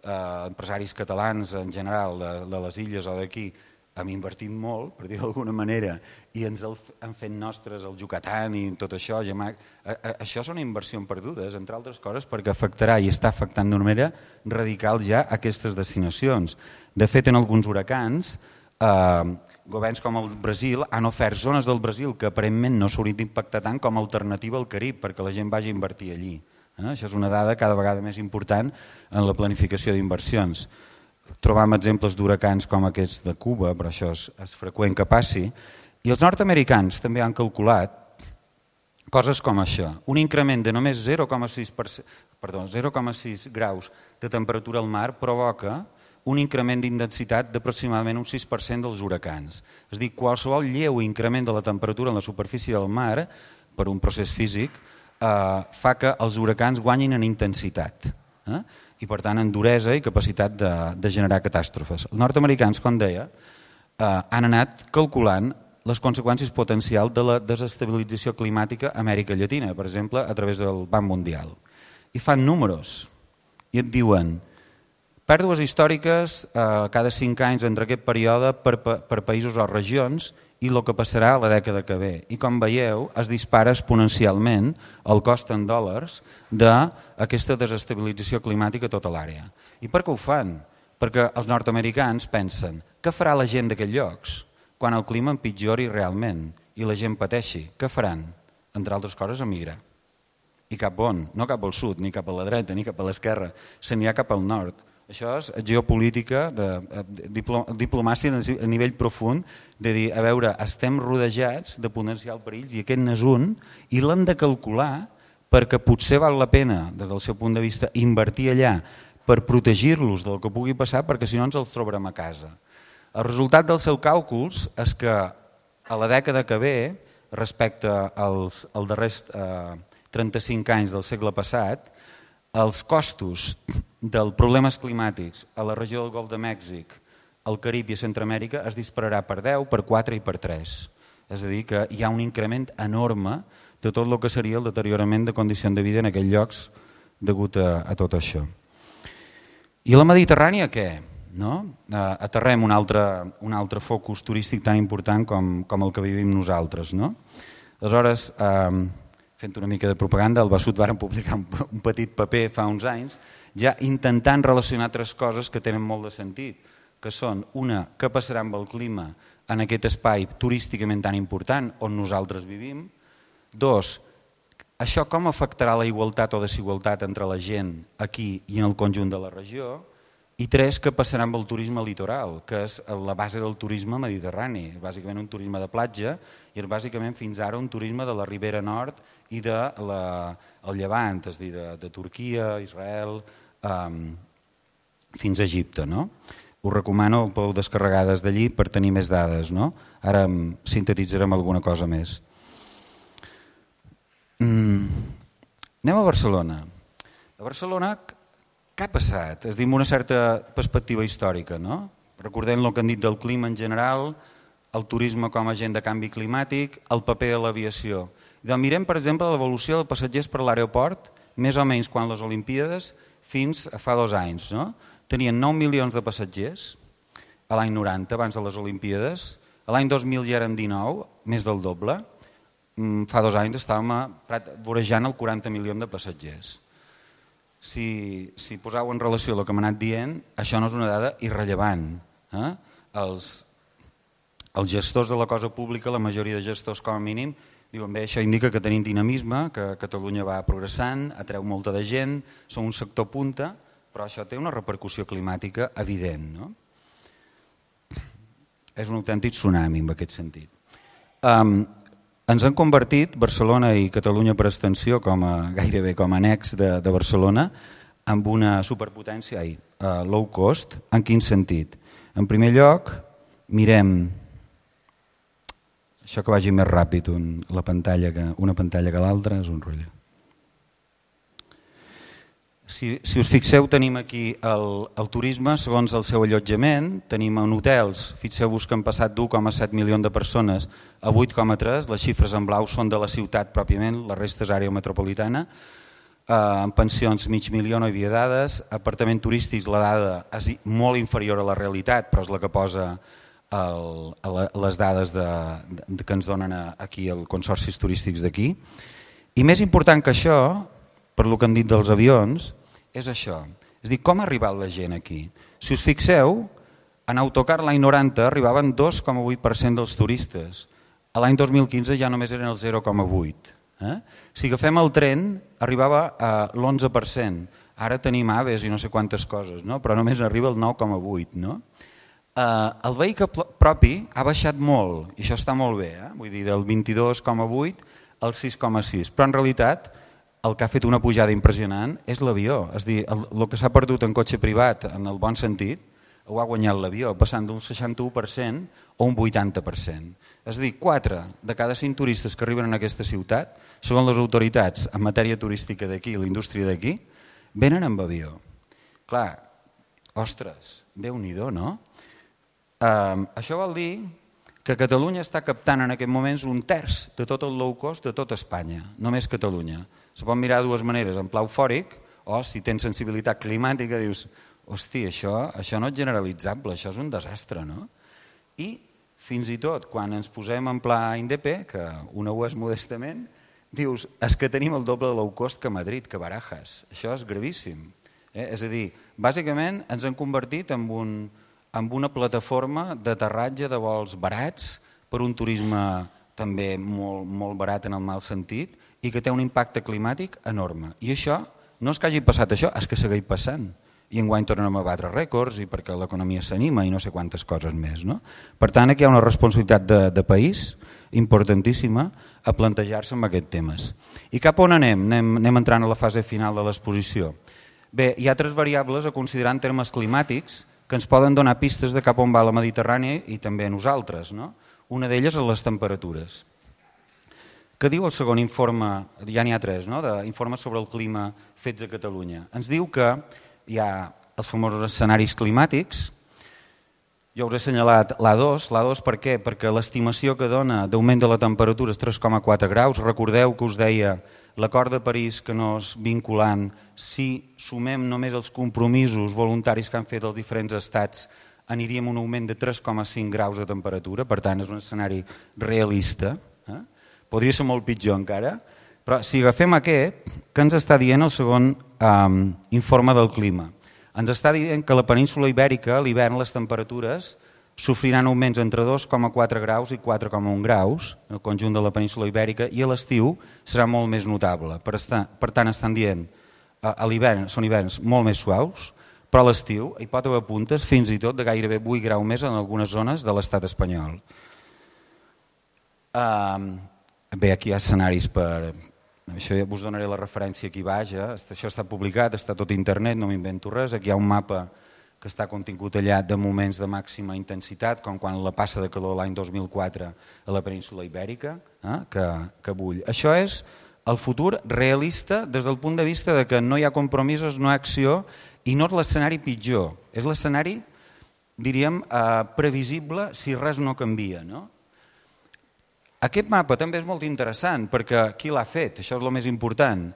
empresaris catalans en general de les illes o d'aquí hem invertit molt, per dir d'alguna manera, i ens han fet nostres el Yucatán i tot això. Això són inversions perdudes, entre altres coses, perquè afectarà i està afectant d'una manera radical ja aquestes destinacions. De fet, en alguns huracans, governs com el Brasil han ofert zones del Brasil que aparentment no s'haurien d'impactar tant com a alternativa al Carib, perquè la gent vagi a invertir allí. Això és una dada cada vegada més important en la planificació d'inversions. Trobam exemples d'huracans com aquests de Cuba, però això és freqüent que passi. I els nord-americans també han calculat coses com això. Un increment de només 0,6 graus de temperatura al mar provoca un increment d'intensitat d'aproximadament un 6% dels huracans. És a dir, qualsevol lleu increment de la temperatura en la superfície del mar, per un procés físic, fa que els huracans guanyin en intensitat. I per tant en duresa i capacitat de generar catàstrofes. Els nord-americans, com deia, han anat calculant les conseqüències potencials de la desestabilització climàtica a Amèrica Llatina, per exemple, a través del Banc Mundial. I fan números i et diuen pèrdues històriques cada 5 anys entre aquest període per països o regions i el que passarà a la dècada que ve. I com veieu, es dispara exponencialment el cost en dòlars d'aquesta desestabilització climàtica a tota l'àrea. I per què ho fan? Perquè els nord-americans pensen què farà la gent d'aquests llocs quan el clima empitjori realment i la gent pateixi? Què faran? Entre altres coses, emigrar. I cap on? No cap al sud, ni cap a la dreta, ni cap a l'esquerra. Se n'hi ha cap al nord. Això és geopolítica, diplomàcia a nivell profund, de dir, a veure, estem rodejats de potencial perills i aquest n'és un, i l'hem de calcular perquè potser val la pena, des del seu punt de vista, invertir allà per protegir-los del que pugui passar, perquè si no ens els trobarem a casa. El resultat dels seus càlculs és que a la dècada que ve, respecte als darrers 35 anys del segle passat, els costos dels problemes climàtics a la regió del Golf de Mèxic, al Carib i a Centroamèrica es dispararà per 10, per 4 i per 3. És a dir, que hi ha un increment enorme de tot el que seria el deteriorament de condicions de vida en aquells llocs degut a tot això. I a la Mediterrània què? Aterrem un altre focus turístic tan important com el que vivim nosaltres. Aleshores, fent una mica de propaganda, al Besut varen publicar un petit paper fa uns anys, ja intentant relacionar 3 coses que tenen molt de sentit, que són, una, què passarà amb el clima en aquest espai turísticament tan important on nosaltres vivim, 2, això com afectarà la igualtat o desigualtat entre la gent aquí i en el conjunt de la regió, i 3, què passarà amb el turisme litoral, que és la base del turisme mediterrani, bàsicament un turisme de platja i és bàsicament fins ara un turisme de la Ribera Nord i del Llevant, és a dir, de Turquia, Israel, fins a Egipte. Us recomano, ho podeu descarregar des d'allí per tenir més dades. Ara sintetitzarem alguna cosa més. Anem a Barcelona. A Barcelona, què ha passat? És a dir, amb una certa perspectiva històrica. Recordem el que han dit del clima en general, el turisme com a agent de canvi climàtic, el paper de l'aviació. Mirem, per exemple, l'evolució dels passatgers per l'aeroport, més o menys quan les Olimpíades, fins a fa 2 anys. Tenien 9 milions de passatgers a l'any 90, abans de les Olimpíades. A l'any 2000 ja eren 19, més del doble. Fa 2 anys estàvem vorejant el 40 milions de passatgers. Si poseu en relació el que m'ha anat dient, això no és una dada irrellevant. Els gestors de la cosa pública, la majoria de gestors com a mínim, diuen bé, això indica que tenim dinamisme, que Catalunya va progressant, atreu molta de gent, som un sector punta, però això té una repercussió climàtica evident. És un autèntic tsunami en aquest sentit. Ens han convertit, Barcelona i Catalunya per extensió, gairebé com a annex de Barcelona, en una superpotència low cost. En quin sentit? En primer lloc, mirem, això que vagi més ràpid, una pantalla que l'altra és un rotllo. Si us fixeu, tenim aquí el turisme segons el seu allotjament, tenim en hotels, fixeu-vos que han passat d'1,7 milions de persones a 8,3, les xifres en blau són de la ciutat pròpiament, la resta és àrea metropolitana, en pensions mig milió no hi havia dades, apartaments turístics la dada és molt inferior a la realitat, però és la que posa les dades que ens donen aquí els consorcis turístics d'aquí. I més important que això, per el que han dit dels avions, és això. És a dir, com ha arribat la gent aquí? Si us fixeu, en autocar l'any 90 arribaven 2,8% dels turistes. A l'any 2015 ja només eren el 0,8%. Si agafem el tren, arribava a l'11%. Ara tenim aves i no sé quantes coses, no? Però només arriba el 9,8%. No? El vehicle propi ha baixat molt, i això està molt bé, vull dir, del 22,8% al 6,6%. Però en realitat el que ha fet una pujada impressionant és l'avió. És a dir, el que s'ha perdut en cotxe privat, en el bon sentit, ho ha guanyat l'avió, passant d'un 61% a un 80%. És a dir, 4 de cada 5 turistes que arriben a aquesta ciutat, segons les autoritats en matèria turística d'aquí, la indústria d'aquí, venen amb avió. Clar, ostres, Déu-n'hi-do, no? Això vol dir que Catalunya està captant en aquests moments 1/3 de tot el low cost de tota Espanya, només Catalunya. Se pot mirar de dues maneres, en pla eufòric, o si tens sensibilitat climàtica dius, hosti, això no és generalitzable, això és un desastre, no? I fins i tot quan ens posem en pla INDEP, que una ho és modestament, dius, és que tenim el doble de low cost que Madrid, que Barajas. Això és gravíssim. És a dir, bàsicament ens hem convertit en una plataforma d'aterratge de vols barats per un turisme també molt barat en el mal sentit i que té un impacte climàtic enorme. I això no és que hagi passat això, és que segueix passant. I enguany tornem a batre rècords i perquè l'economia s'anima i no sé quantes coses més. No? Per tant, aquí hi ha una responsabilitat de país importantíssima a plantejar-se amb aquests temes. I cap on anem? Anem entrant a la fase final de l'exposició. Bé, hi ha 3 variables a considerar en termes climàtics que ens poden donar pistes de cap on va la Mediterrània i també a nosaltres. No? Una d'elles és les temperatures. Què diu el segon informe? Ja n'hi ha 3, no? D'informes sobre el clima fets a Catalunya. Ens diu que hi ha els famosos escenaris climàtics. Jo us he assenyalat l'A2. L'A2 per què? Perquè l'estimació que dona d'augment de la temperatura és 3,4 graus. Recordeu que us deia l'acord de París que no és vinculant. Si sumem només els compromisos voluntaris que han fet els diferents estats, aniríem a un augment de 3,5 graus de temperatura. Per tant, és un escenari realista. Podria ser molt pitjor encara. Però si agafem aquest, què ens està dient el segon informe del clima? Ens està dient que a la península Ibèrica, a l'hivern, les temperatures sofriran augments entre 2,4 graus i 4,1 graus, el conjunt de la península Ibèrica, i a l'estiu serà molt més notable. Per tant, estan dient a l'hivern són hiverns molt més suaus, però a l'estiu hi pot haver puntes fins i tot de gairebé 8 graus més en algunes zones de l'estat espanyol. Bé, aquí hi ha escenaris per... Això ja us donaré la referència aquí baix, això està publicat, està tot a internet, no m'invento res. Aquí hi ha un mapa que està contingut allà de moments de màxima intensitat, com quan la passa de calor l'any 2004 a la península Ibèrica, que bull. Això és el futur realista des del punt de vista de que no hi ha compromisos, no hi ha acció, i no és l'escenari pitjor, és l'escenari, diríem, previsible si res no canvia, no? Aquest mapa també és molt interessant perquè qui l'ha fet? Això és el més important.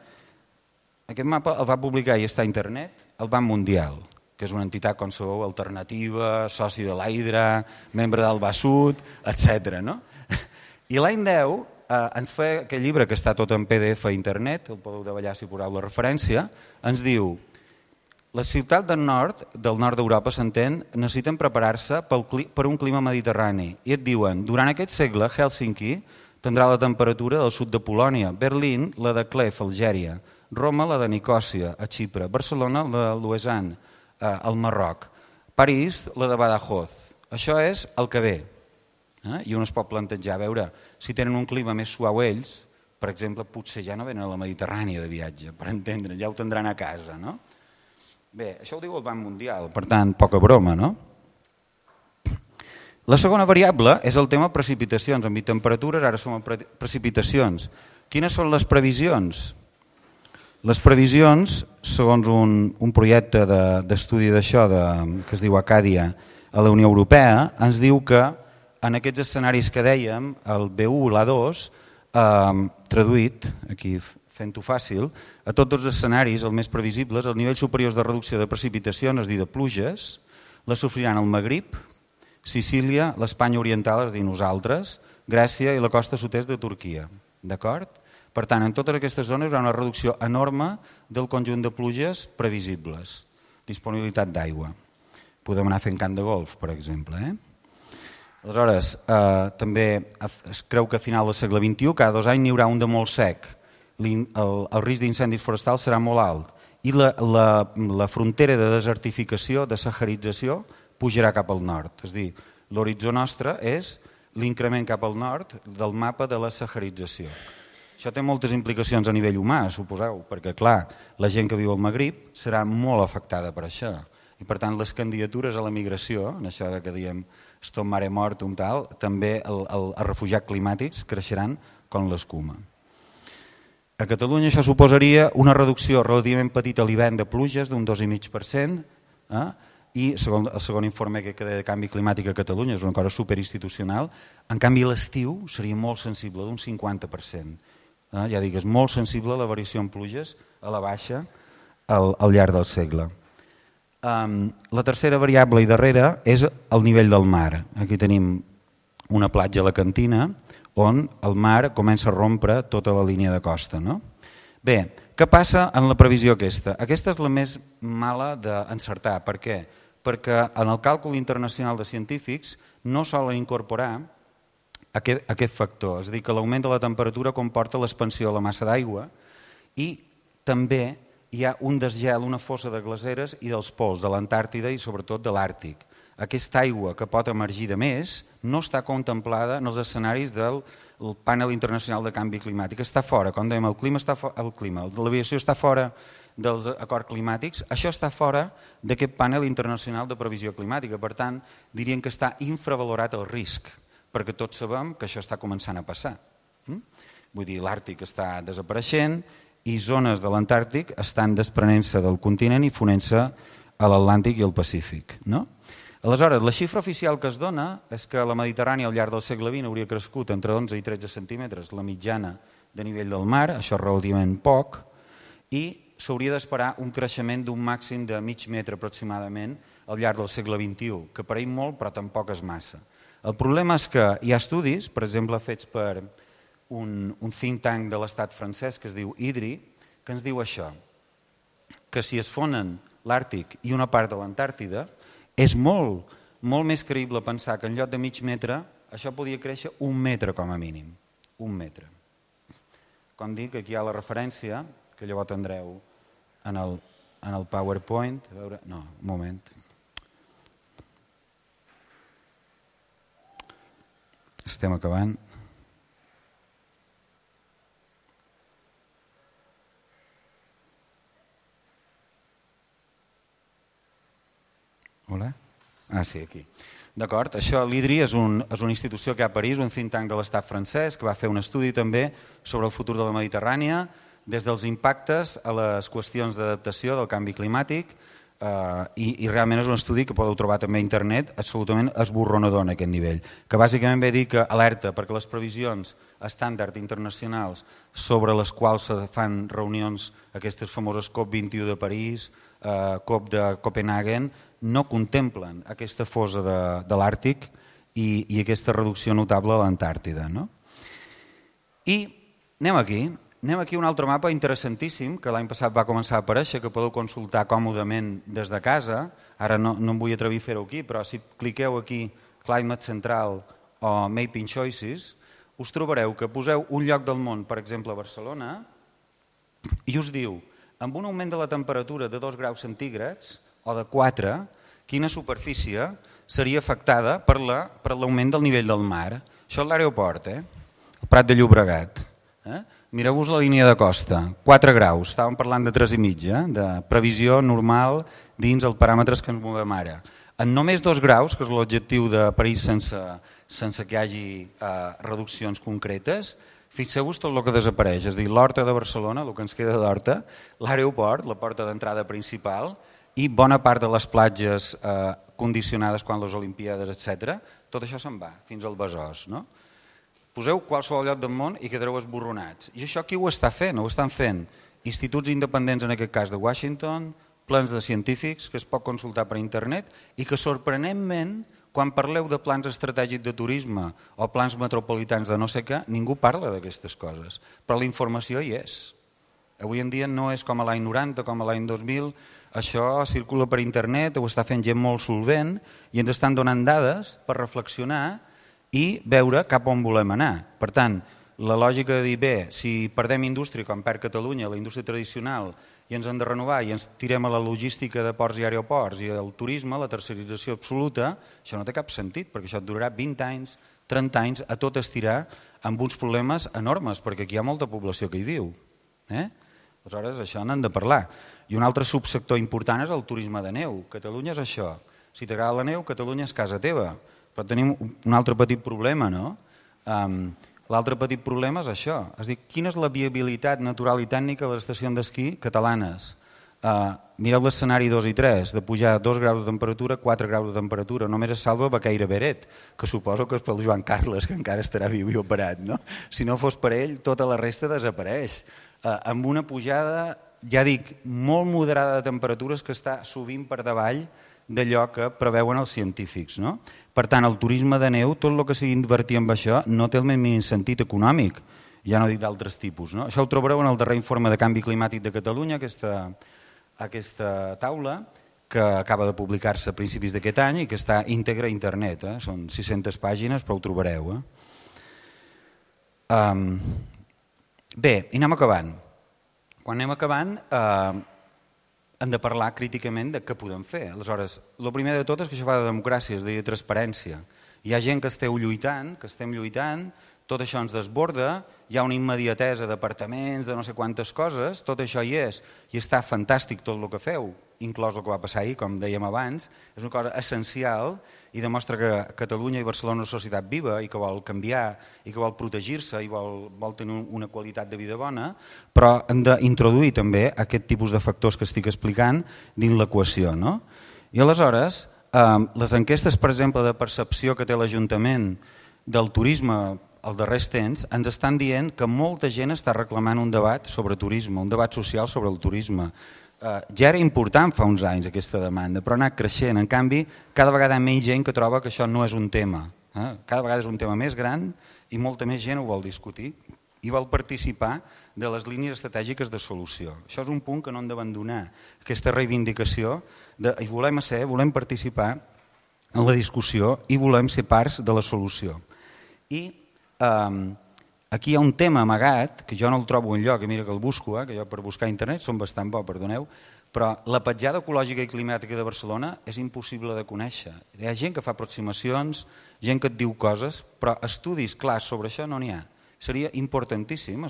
Aquest mapa el va publicar i està a internet el Banc Mundial, que és una entitat, com sabeu, alternativa, soci de l'Hydra, membre del Basut, etc. No? I l'any 10 ens fa aquest llibre que està tot en PDF a internet, el podeu davallar si poseu la referència, ens diu: les ciutats del nord d'Europa, s'entén, necessiten preparar-se per un clima mediterrani. I et diuen, durant aquest segle, Hèlsinki tindrà la temperatura del sud de Polònia, Berlín, la de Clef, Algèria, Roma, la de Nicòsia, a Xipre, Barcelona, la de Lausanne, al Marroc, París, la de Badajoz. Això és el que ve. I un es pot plantejar, a veure, si tenen un clima més suau ells, per exemple, potser ja no venen a la Mediterrània de viatge, per entendre, ja ho tindran a casa, no? Bé, això ho diu el Banc Mundial, per tant, poca broma, no? La segona variable és el tema precipitacions. Hem dit temperatures, ara som en precipitacions. Quines són les previsions? Les previsions, segons un projecte d'estudi d'això que es diu Acàdia a la Unió Europea, ens diu que en aquests escenaris que dèiem, el B1 i l'A2, traduït, aquí fent-ho fàcil, a tots els escenaris, els més previsibles, els nivells superiors de reducció de precipitacions, és a dir, de pluges, les sofriran el Magrib, Sicília, l'Espanya oriental, és a dir, nosaltres, Grècia i la costa sud-est de Turquia. D'acord? Per tant, en totes aquestes zones hi haurà una reducció enorme del conjunt de pluges previsibles. Disponibilitat d'aigua. Podem anar fent camp de golf, per exemple. Aleshores, també es creu que a final del segle XXI, cada 2 anys n'hi haurà un de molt sec. El risc d'incendis forestals serà molt alt. I la frontera de desertificació, de saharització, pujarà cap al nord. És a dir, l'horitzó nostre és l'increment cap al nord del mapa de la saharització. Això té moltes implicacions a nivell humà, suposeu, perquè clar, la gent que viu al Magrib serà molt afectada per això. I per tant les candidatures a la migració, en això que diem stop mare mortum tal, també els refugiats climàtics creixeran com l'escuma. A Catalunya això suposaria una reducció relativament petita a l'hivern de pluges d'un 2,5%, i segons el segon informe que de canvi climàtic a Catalunya, és una cosa superinstitucional, en canvi l'estiu seria molt sensible, d'un 50%. Ja dic, és molt sensible la variació en pluges a la baixa al llarg del segle. La tercera variable i darrera és el nivell del mar. Aquí tenim una platja alacantina on el mar comença a rompre tota la línia de costa. Bé, què passa en la previsió aquesta? Aquesta és la més mala d'encertar. Per què? Perquè en el càlcul internacional de científics no solen incorporar aquest factor, és a dir, que l'augment de la temperatura comporta l'expansió de la massa d'aigua i també hi ha un desgel, una fossa de glaceres i dels pols de l'Antàrtida i sobretot de l'Àrtic. Aquesta aigua que pot emergir de més no està contemplada en els escenaris del panel internacional de canvi climàtic. Està fora, com dèiem, l'aviació està fora dels acords climàtics, això està fora d'aquest panel internacional de previsió climàtica. Per tant, dirien que està infravalorat el risc, perquè tots sabem que això està començant a passar. Vull dir, l'Àrtic està desapareixent i zones de l'Antàrtic estan desprenent-se del continent i fonent-se a l'Atlàntic i al Pacífic. Aleshores, la xifra oficial que es dona és que la Mediterrània al llarg del segle XX hauria crescut entre 11 i 13 centímetres la mitjana de nivell del mar, això és relativament poc, i s'hauria d'esperar un creixement d'un màxim de mig metre aproximadament al llarg del segle XXI, que pareix molt però tampoc és massa. El problema és que hi ha estudis, per exemple, fets per un think tank de l'estat francès que es diu IDRI, que ens diu això, que si es fonen l'Àrtic i una part de l'Antàrtida, és molt més creïble pensar que en lloc de mig metre això podria créixer 1 metre com a mínim. 1 metre. Com dic, aquí hi ha la referència, que llavors tindreu en el PowerPoint. A veure, no, un moment. Estem acabant. Hola? Ah, sí, aquí. D'acord, això l'IDRI és una institució que hi ha a París, un think tank de l'estat francès, que va fer un estudi també sobre el futur de la Mediterrània, des dels impactes a les qüestions d'adaptació del canvi climàtic, i realment és un estudi que podeu trobar també a internet absolutament esborronador en aquest nivell, que bàsicament ve a dir que alerta perquè les previsions estàndard internacionals sobre les quals se fan reunions, aquestes famoses COP21 de París, COP de Copenhagen, no contemplen aquesta fosa de l'Àrtic i aquesta reducció notable a l'Antàrtida. I anem aquí a un altre mapa interessantíssim que l'any passat va començar a aparèixer, que podeu consultar còmodament des de casa. Ara no em vull atrevir a fer-ho aquí, però si cliqueu aquí Climate Central o Mapping Choices, us trobareu que poseu un lloc del món, per exemple a Barcelona, i us diu, amb un augment de la temperatura de 2 graus centígrads o de 4, quina superfície seria afectada per l'augment del nivell del mar. Això és l'aeroport, el Prat de Llobregat. Mireu-vos la línia de costa, 4 graus, estàvem parlant de 3,5, de previsió normal dins els paràmetres que ens movem ara. En només 2 graus, que és l'objectiu de París sense que hi hagi reduccions concretes, Fixeu-vos tot el que desapareix, és a dir, l'Horta de Barcelona, el que ens queda d'Horta, l'aeroport, la porta d'entrada principal i bona part de les platges condicionades quan les Olimpíades, etc. Tot això se'n va, fins al Besòs. No? Poseu qualsevol lloc del món i quedareu esborronats. I això qui ho està fent? Ho estan fent instituts independents, en aquest cas de Washington, plans de científics que es pot consultar per internet i que sorprenentment, quan parleu de plans estratègics de turisme o plans metropolitans de no sé què, ningú parla d'aquestes coses, però la informació hi és. Avui en dia no és com a l'any 90, com a l'any 2000, això circula per internet, ho està fent gent molt solvent i ens estan donant dades per reflexionar i veure cap on volem anar. Per tant, la lògica de dir, bé, si perdem indústria, com perd Catalunya, la indústria tradicional, i ens hem de renovar i ens tirem a la logística de ports i aeroports i el turisme, la tercerització absoluta, això no té cap sentit, perquè això et durarà 20 anys, 30 anys, a tot estirar amb uns problemes enormes, perquè aquí hi ha molta població que hi viu. Aleshores, això n'hem de parlar. I un altre subsector important és el turisme de neu. Catalunya és això. Si t'agrada la neu, Catalunya és casa teva. Però tenim un altre petit problema, no? L'altre petit problema és això, és dir, quina és la viabilitat natural i tècnica de les estacions d'esquí catalanes? Mireu l'escenari 2 i 3, de pujar 2 graus de temperatura, 4 graus de temperatura, només es salva Baqueira Beret, que suposo que és pel Joan Carles, que encara estarà viu i operat, no? Si no fos per ell, tota la resta desapareix. Amb una pujada, ja dic, molt moderada de temperatures que està sovint per davall d'allò que preveuen els científics. No? Per tant, el turisme de neu, tot el que sigui invertir en això, no té el mínim sentit econòmic, ja no dic d'altres tipus. No? Això ho trobareu en el darrer informe de canvi climàtic de Catalunya, aquesta taula, que acaba de publicar-se a principis d'aquest any i que està íntegra a internet. Són 600 pàgines, però ho trobareu. Bé, i anem acabant. Quan anem acabant, hem de parlar críticament de què podem fer. Aleshores, el primer de tot és que això fa de democràcia, és a dir, de transparència. Hi ha gent que esteu lluitant, que estem lluitant, tot això ens desborda, hi ha una immediatesa d'apartaments, de no sé quantes coses, tot això hi és, i està fantàstic tot el que feu, inclòs el que va passar ahir, com dèiem abans, és una cosa essencial i demostra que Catalunya i Barcelona és una societat viva i que vol canviar i que vol protegir-se i vol tenir una qualitat de vida bona, però hem d'introduir també aquest tipus de factors que estic explicant dins l'equació. No? I aleshores, les enquestes, per exemple, de percepció que té l'Ajuntament del turisme als darrers temps ens estan dient que molta gent està reclamant un debat sobre turisme, un debat social sobre el turisme. Ja era important fa uns anys aquesta demanda, però ha anat creixent. En canvi, cada vegada hi ha menys gent que troba que això no és un tema. Cada vegada és un tema més gran i molta més gent ho vol discutir i vol participar de les línies estratègiques de solució. Això és un punt que no hem d'abandonar, aquesta reivindicació i volem participar en la discussió i volem ser parts de la solució. I aquí hi ha un tema amagat, que jo no el trobo enlloc, mira que el busco, que jo per buscar a internet som bastant bo, perdoneu, però la petjada ecològica i climàtica de Barcelona és impossible de conèixer. Hi ha gent que fa aproximacions, gent que et diu coses, però estudis clars sobre això no n'hi ha. Seria importantíssim a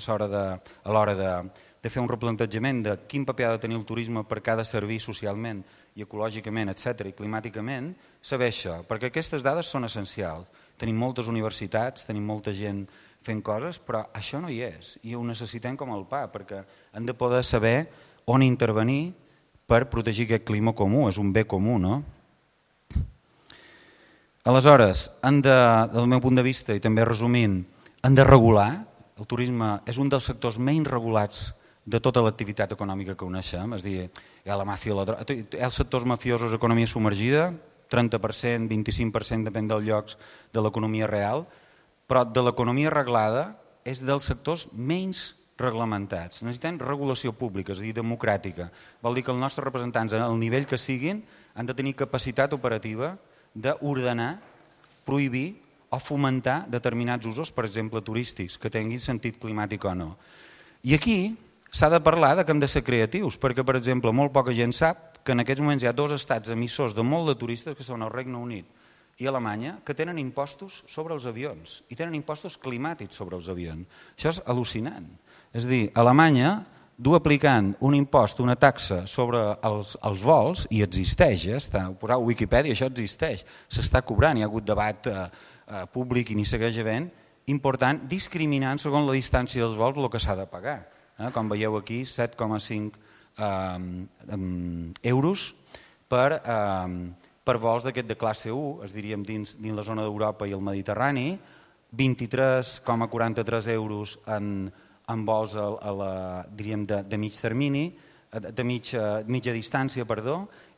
l'hora de fer un replantejament de quin paper ha de tenir el turisme per cada servir socialment i ecològicament, etc. i climàticament, saber això, perquè aquestes dades són essencials. Tenim moltes universitats, tenim molta gent fent coses, però això no hi és i ho necessitem com el pa, perquè hem de poder saber on intervenir per protegir aquest clima comú, és un bé comú, no? Aleshores, del meu punt de vista, i també resumint, hem de regular, el turisme és un dels sectors menys regulats de tota l'activitat econòmica que coneixem, és a dir, hi ha la màfia, hi ha els sectors mafiosos, economia submergida, 30%, 25% depèn dels llocs de l'economia real, però de l'economia reglada és dels sectors menys reglamentats. Necessitem regulació pública, és a dir, democràtica. Vol dir que els nostres representants, al nivell que siguin, han de tenir capacitat operativa d'ordenar, prohibir o fomentar determinats usos, per exemple, turístics, que tinguin sentit climàtic o no. I aquí s'ha de parlar que hem de ser creatius, perquè, per exemple, molt poca gent sap que en aquests moments hi ha 2 estats emissors de molt de turistes, que són el Regne Unit i Alemanya, que tenen impostos sobre els avions i tenen impostos climàtics sobre els avions. Això és al·lucinant. És a dir, Alemanya du aplicant un impost, una taxa sobre els vols, i existeix, ho poseu a Wikipedia, això existeix, s'està cobrant, hi ha hagut debat públic i n'hi segueix havent, important, discriminant segons la distància dels vols el que s'ha de pagar. Com veieu aquí, 7,5 euros per vols d'aquest de classe 1, es diríem dins la zona d'Europa i el Mediterrani, 23,43 euros en vols diríem de mig termini, de mitja distància,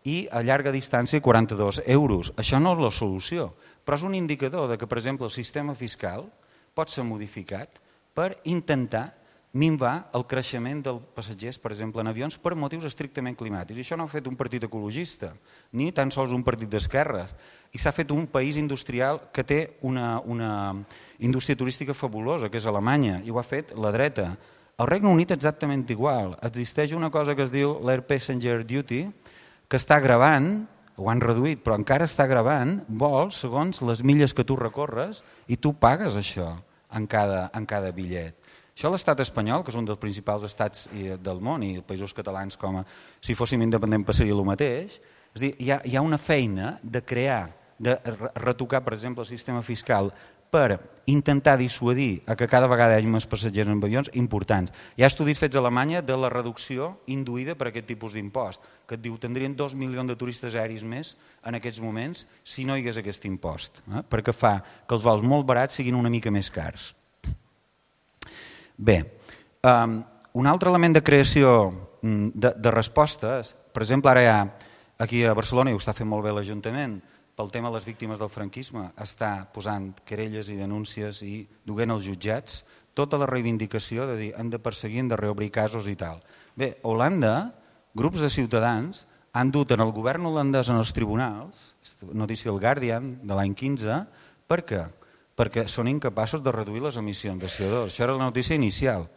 i a llarga distància 42 euros. Això no és la solució, però és un indicador de que, per exemple, el sistema fiscal pot ser modificat per intentar minvar el creixement dels passatgers, per exemple, en avions, per motius estrictament climàtics. I això no ho ha fet un partit ecologista, ni tan sols un partit d'esquerres. I s'ha fet un país industrial que té una indústria turística fabulosa, que és Alemanya, i ho ha fet la dreta. Al Regne Unit exactament igual. Existeix una cosa que es diu l'Air Passenger Duty, que està gravant, ho han reduït, però encara està gravant vols segons les milles que tu recorres i tu pagues això en cada bitllet. Això l'estat espanyol, que és un dels principals estats del món, i els països catalans, com si fóssim independents passaria el mateix, és a dir, hi ha una feina de crear, de retocar, per exemple, el sistema fiscal per intentar dissuadir a que cada vegada hi hagi més passatgers en avions importants. Hi ha estudis fets a Alemanya de la reducció induïda per aquest tipus d'impost, que et diu que tindrien 2 milions de turistes aeris més en aquests moments si no hi hagués aquest impost, perquè fa que els vols molt barats siguin una mica més cars. Bé, un altre element de creació de respostes, per exemple, ara hi ha aquí a Barcelona, i ho està fent molt bé l'Ajuntament, pel tema de les víctimes del franquisme, està posant querelles i denúncies i duent als jutjats tota la reivindicació de dir hem de perseguir, hem de reobrir casos i tal. Bé, a Holanda, grups de ciutadans han dut en el govern holandès en els tribunals, notícia del Guardian de l'any 15, per què? Perquè són incapaços de reduir les emissions de CO2. Això era la notícia inicial.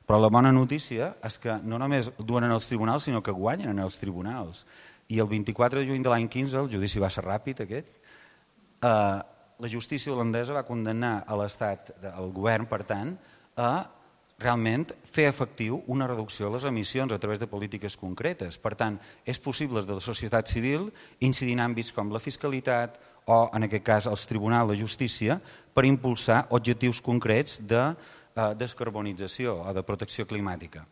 Però la bona notícia és que no només duen en els tribunals, sinó que guanyen en els tribunals. I el 24 de juny de l'any 15, el judici va ser ràpid aquest, la justícia holandesa va condemnar a l'Estat, al govern, per tant, a realment fer efectiu una reducció de les emissions a través de polítiques concretes. Per tant, és possible des de la societat civil incidir en àmbits com la fiscalitat o, en aquest cas, els tribunals de justícia per impulsar objectius concrets de descarbonització o de protecció climàtica.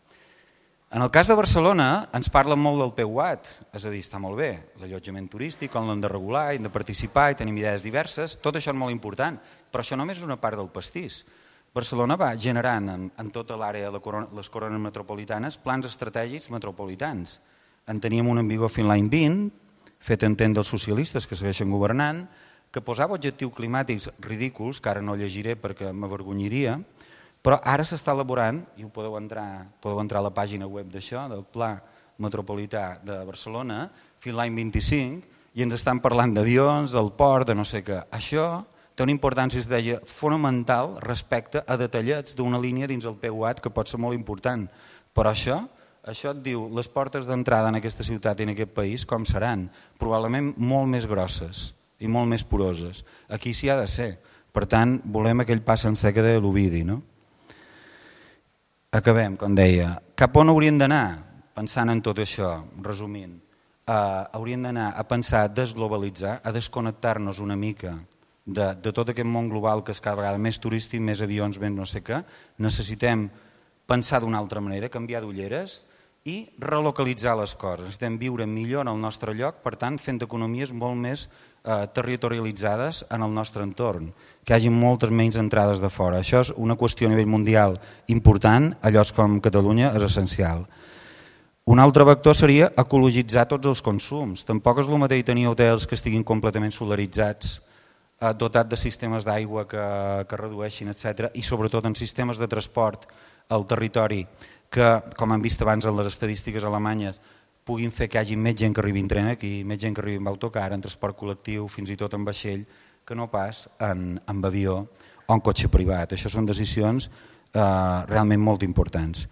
En el cas de Barcelona ens parlen molt del PUAT, és a dir, està molt bé, l'allotjament turístic, on l'hem de regular, hem de participar i tenim idees diverses, tot això és molt important, però això només és una part del pastís. Barcelona va generant en tota l'àrea de les corones metropolitanes plans estratègics metropolitans. En teníem un en vigor fins l'any 20, fet entendre dels socialistes que segueixen governant, que posava objectius climàtics ridículs, que ara no llegiré perquè m'avergonyiria, però ara s'està elaborant, i ho podeu entrar a la pàgina web d'això, del Pla Metropolità de Barcelona, fins l'any 25, i ens estan parlant d'avions, del port, de no sé què. Això té una importància, es deia, fonamental respecte a detallets d'una línia dins el PUAT que pot ser molt important. Però això et diu, les portes d'entrada en aquesta ciutat i en aquest país com seran? Probablement molt més grosses i molt més poroses. Aquí s'hi ha de ser. Per tant, volem aquell pas sencer que deia l'Ovidi, no? Acabem, com deia. Cap on hauríem d'anar? Pensant en tot això, resumint. Hauríem d'anar a pensar a desglobalitzar, a desconnectar-nos una mica de tot aquest món global que és cada vegada més turístic, més avions, més no sé què. Necessitem pensar d'una altra manera, canviar d'ulleres i relocalitzar les coses. Necessitem viure millor en el nostre lloc, per tant, fent economies molt més territorialitzades en el nostre entorn, que hi hagi moltes menys entrades de fora. Això és una qüestió a nivell mundial important, a llocs com Catalunya és essencial. Un altre vector seria ecologitzar tots els consums. Tampoc és el mateix tenir hotels que estiguin completament solaritzats, dotat de sistemes d'aigua que redueixin, etc. I sobretot en sistemes de transport al territori que, com hem vist abans en les estadístiques alemanyes, puguin fer que hi hagi més gent que arribi en tren aquí, més gent que arribi en autocar, en transport col·lectiu, fins i tot en vaixell, que no pas en avió o en cotxe privat. Això són decisions realment molt importants.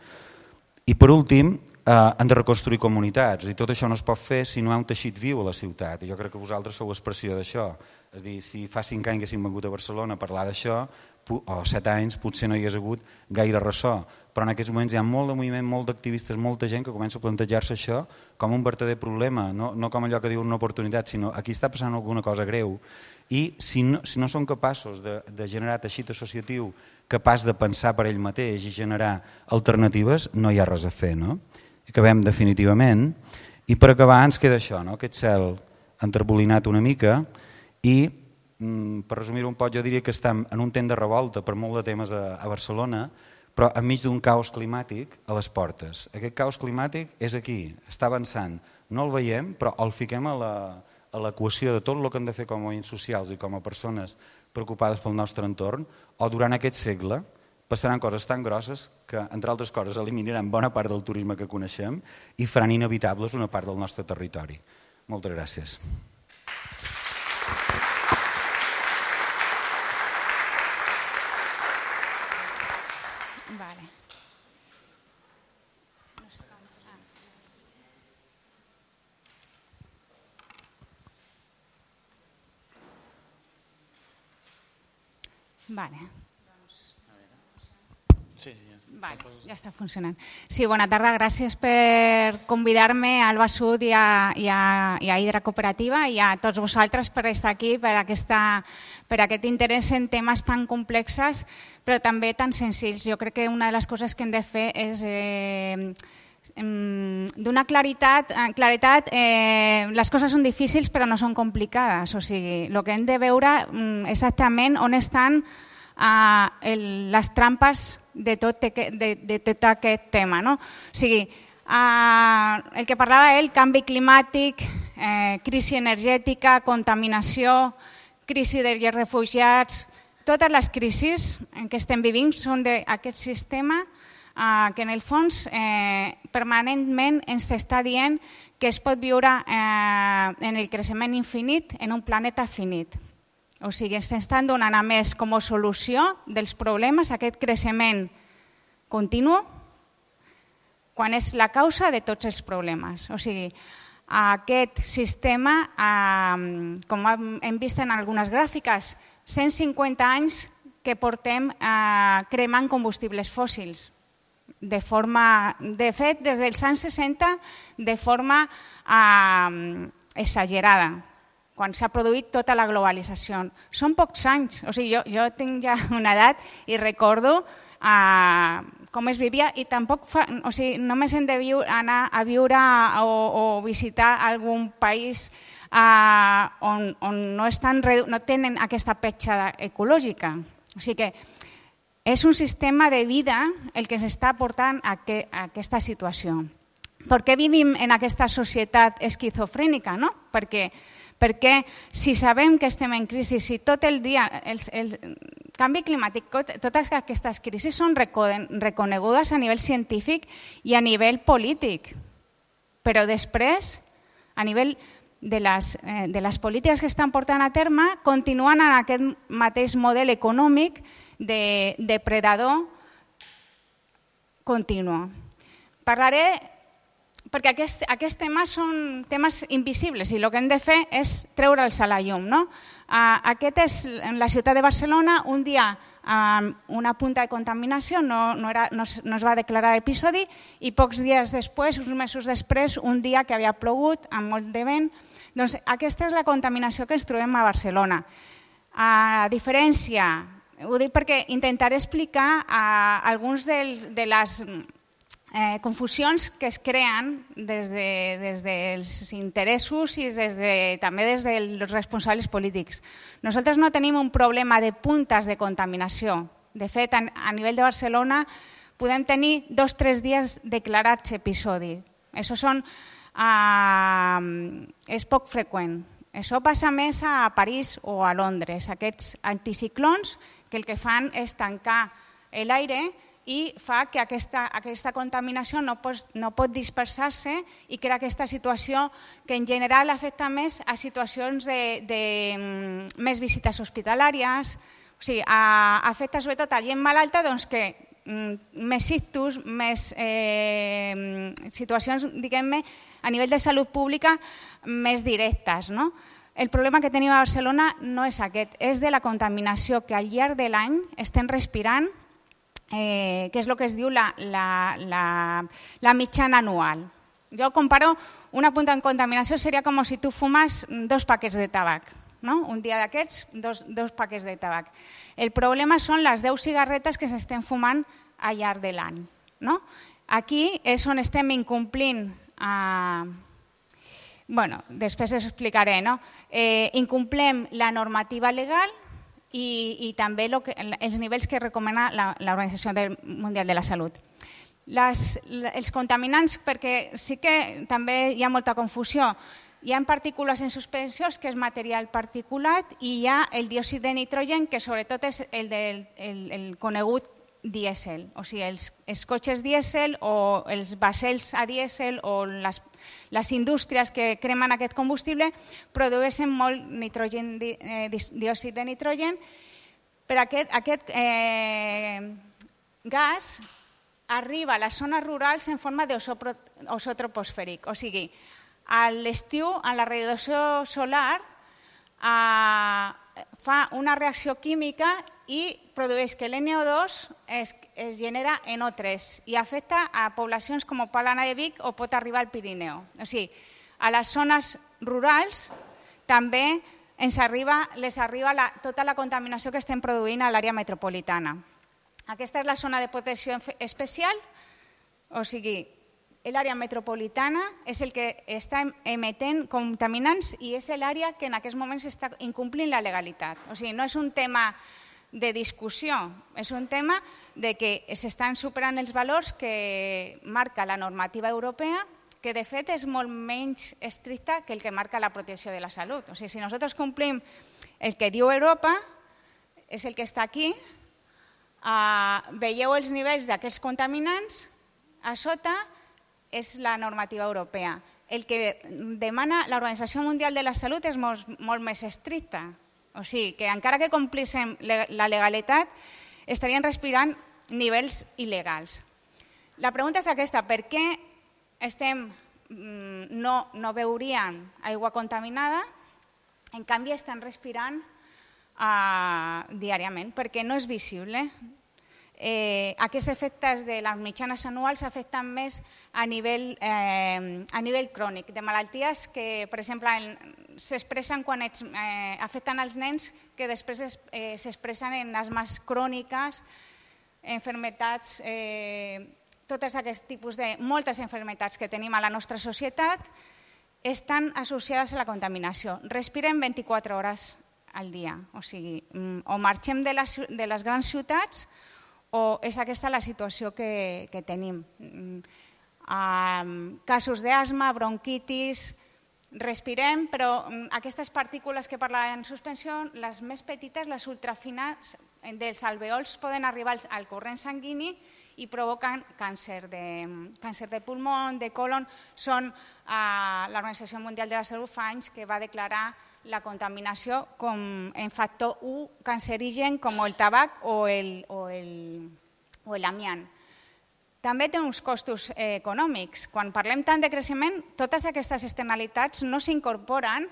I per últim, han de reconstruir comunitats, i tot això no es pot fer si no hi ha un teixit viu a la ciutat, i jo crec que vosaltres sou expressió d'això. És a dir, si fa 5 anys que haguéssim vengut a Barcelona a parlar d'això, o 7 anys potser no hi hagués hagut gaire ressò, però en aquests moments hi ha molt de moviment, molt d'activistes, molta gent que comença a plantejar-se això com un verdader problema, no com allò que diuen una oportunitat, sinó aquí està passant alguna cosa greu i si no són capaços de generar teixit associatiu capaç de pensar per ell mateix i generar alternatives, no hi ha res a fer. No? Acabem definitivament i per acabar ens queda això, no? Aquest cel enterbolinat una mica i per resumir-ho un poc jo diria que estem en un temps de revolta per molt de temes a Barcelona però enmig d'un caos climàtic a les portes. Aquest caos climàtic és aquí, està avançant, no el veiem però el fiquem a l'equació de tot el que hem de fer com a moviments socials i com a persones preocupades pel nostre entorn o durant aquest segle passaran coses tan grosses que, entre altres coses, eliminaran bona part del turisme que coneixem i faran inevitables una part del nostre territori. Moltes gràcies. Vale. Vale. Vale, ja està funcionant. Sí, bona tarda, gràcies per convidar-me al Albasud i a Hidra Cooperativa i a tots vosaltres per estar aquí, per aquest interès en temes tan complexes però també tan senzills. Jo crec que una de les coses que hem de fer és donar claretat, les coses són difícils però no són complicades, o sigui, el que hem de veure exactament on estan les trampes de tot aquest tema. No? O sigui, el que parlava ell, canvi climàtic, crisi energètica, contaminació, crisi dels refugiats, totes les crisis que estem vivint són d'aquest sistema que en el fons permanentment ens està dient que es pot viure en el creixement infinit en un planeta finit. O sigui, ens estan donant a més com a solució dels problemes aquest creixement continu quan és la causa de tots els problemes. O sigui, aquest sistema, com hem vist en algunes gràfiques, 150 anys que portem cremant combustibles fòssils. De fet, des dels anys 60, de forma exagerada, quan s'ha produït tota la globalització. Són pocs anys, o sigui, jo tinc ja una edat i recordo com es vivia i tampoc només hem de anar a viure o visitar algun país on no tenen aquesta petjada ecològica. O sigui que és un sistema de vida el que s'està portant a aquesta situació. Per què vivim en aquesta societat esquizofrènica? Perquè si sabem que estem en crisi, si tot el dia el canvi climàtic, totes aquestes crisis són reconegudes a nivell científic i a nivell polític, però després, a nivell de les polítiques que estan portant a terme, continuen en aquest mateix model econòmic de depredador continu. Parlaré perquè aquests temes són temes invisibles i el que hem de fer és treure'ls a la llum. Aquest és en la ciutat de Barcelona, un dia una punta de contaminació, no es va declarar episodi i pocs dies després, uns mesos després, un dia que havia plogut amb molt de vent. Doncs aquesta és la contaminació que ens trobem a Barcelona. A diferència, ho dic perquè intentaré explicar alguns de les confusions que es creen des dels interessos i també des dels responsables polítics. Nosaltres no tenim un problema de puntes de contaminació. De fet, a nivell de Barcelona podem tenir 2 o 3 dies declarats episodi. Això és poc freqüent. Això passa més a París o a Londres. Aquests anticiclons que el que fan és tancar l'aire i fa que aquesta contaminació no pot dispersar-se i crea aquesta situació que en general afecta més a situacions de més visites hospitalàries, o sigui, afecta sobretot a gent malalta que més ictus, més situacions, diguem-ne, a nivell de salut pública més directes. el problema que tenim a Barcelona no és aquest, és de la contaminació que al llarg de l'any estem respirant, que és el que es diu la mitjana anual. Jo comparo, una punta de contaminació seria com si tu fumes 2 paquets de tabac. No? Un dia d'aquests, 2 paquets de tabac. El problema són les 10 cigarretes que s'estem fumant al llarg de l'any. No? Aquí és on estem incomplint, després us explicaré, no? Incomplem la normativa legal i també els nivells que recomana l'Organització Mundial de la Salut. Els contaminants, perquè sí que també hi ha molta confusió, hi ha partícules en suspensió, que és material particulat, i hi ha el diòxid de nitrogen, que sobretot és el conegut dièsel. O sigui, els cotxes dièsel o els vaixells a dièsel o les indústries que cremen aquest combustible produeixen molt diòxid de nitrogen, però aquest gas arriba a les zones rurals en forma d'ozó troposfèric. O sigui, a l'estiu, a la radiació solar, fa una reacció química i produeix que l'NO2 es genera en O3 i afecta a poblacions com Palana de Vic o pot arribar al Pirineu. O sigui, a les zones rurals també les arriba tota la contaminació que estem produint a l'àrea metropolitana. Aquesta és la zona de protecció especial, o sigui, l'àrea metropolitana és el que està emetent contaminants i és l'àrea que en aquests moments està incomplint la legalitat. O sigui, no és un tema de discussió, és un tema de que s'estan superant els valors que marca la normativa europea, que de fet és molt menys estricta que el que marca la protecció de la salut. O sigui, si nosaltres complim el que diu Europa, és el que està aquí, veieu els nivells d'aquests contaminants, a sota és la normativa europea. El que demana l'Organització Mundial de la Salut és molt més estricta. O sigui, que encara que complíssim la legalitat, estarien respirant nivells il·legals. La pregunta és aquesta, per què no beuríem aigua contaminada, en canvi estan respirant diàriament, perquè no és visible. Aquests efectes de les mitjanes anuals afecten més a nivell crònic, de malalties que, per exemple, s'expressen quan afecten els nens, que després s'expressen en asmes cròniques, malalties, tots aquests tipus de moltes malalties que tenim a la nostra societat estan associades a la contaminació. Respirem 24 hores al dia, o sigui, o marxem de les grans ciutats o és aquesta la situació que tenim. Casos d'asma, bronquitis, respirem, però aquestes partícules que parlaven en suspensió, les més petites, les ultrafines, dels alveols poden arribar al corrent sanguini i provoquen càncer de pulmó, de colon. L'Organització Mundial de la Salut fa anys que va declarar la contaminació com en factor 1 cancerigen com el tabac o l'amiant. També té uns costos econòmics. Quan parlem tant de creixement, totes aquestes externalitats no s'incorporen.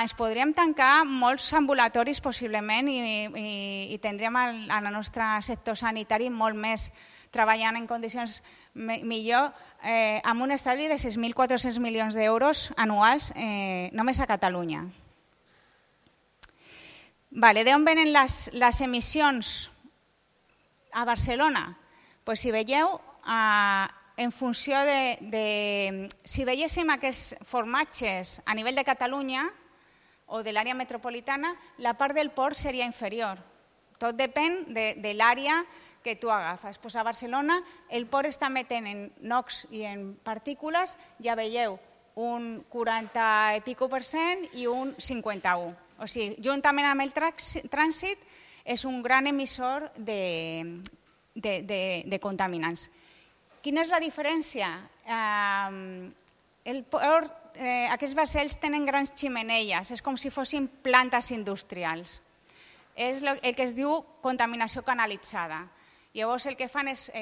Es podríem tancar molts ambulatoris possiblement i tindríem el nostre sector sanitari molt més treballant en condicions millor, amb un estalvi de 6.400 milions d'euros anuals només a Catalunya. D'on venen les emissions a Barcelona? Si veieu, en funció de... Si veiéssim aquests formatges a nivell de Catalunya o de l'àrea metropolitana, la part del port seria inferior. Tot depèn de l'àrea que tu agafes. A Barcelona el port està emetent en NOx i en partícules, ja veieu, un 40 i pico % i un 51. O sigui, juntament amb el trànsit, és un gran emissor de contaminants. Quina és la diferència? Aquests vaixells tenen grans ximeneies, és com si fossin plantes industrials. És el que es diu contaminació canalitzada. Llavors el que fan és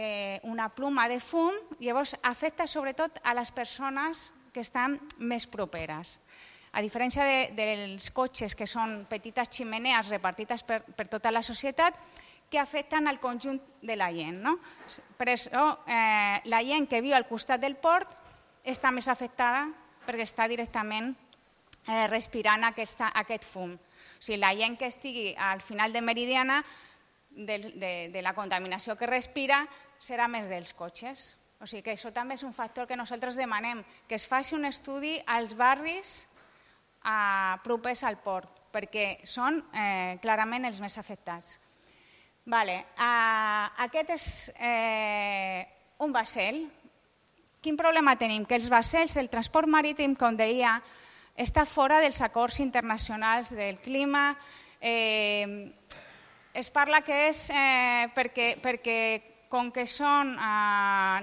una pluma de fum, llavors afecta sobretot a les persones que estan més properes. a diferència dels cotxes, que són petites ximenees repartides per tota la societat, que afecten al conjunt de la gent. No? Per això, la gent que viu al costat del port està més afectada perquè està directament respirant aquest fum. O sigui, la gent que estigui al final de Meridiana, de la contaminació que respira, serà més dels cotxes. O sigui que això també és un factor que nosaltres demanem, que es faci un estudi als barris propers al port, perquè són clarament els més afectats. Aquest és un vaixell. Quin problema tenim? Que els vaixells, el transport marítim, com deia, està fora dels acords internacionals del clima. Es parla que és perquè com que són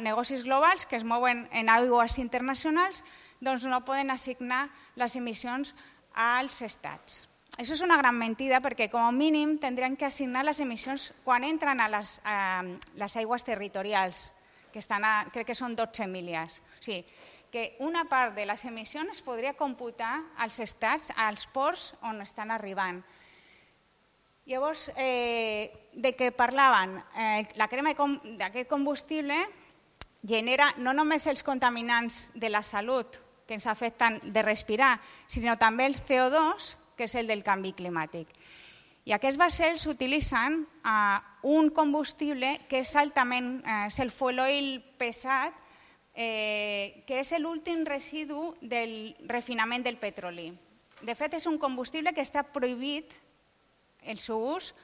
negocis globals que es mouen en aigües internacionals, doncs no poden assignar les emissions als estats. Això és una gran mentida perquè com a mínim tindrien que assignar les emissions quan entren a les aigües territorials, que crec que són 12 milles. O sigui, que una part de les emissions es podria computar als estats, als ports on estan arribant. Llavors, de què parlaven? La crema d'aquest combustible genera no només els contaminants de la salut que ens afecten de respirar, sinó també el CO2, que és el del canvi climàtic. I aquests vaixells utilitzen un combustible que és altament, és el fuel oil pesat, que és l'últim residu del refinament del petroli. De fet, és un combustible que està prohibit el seu ús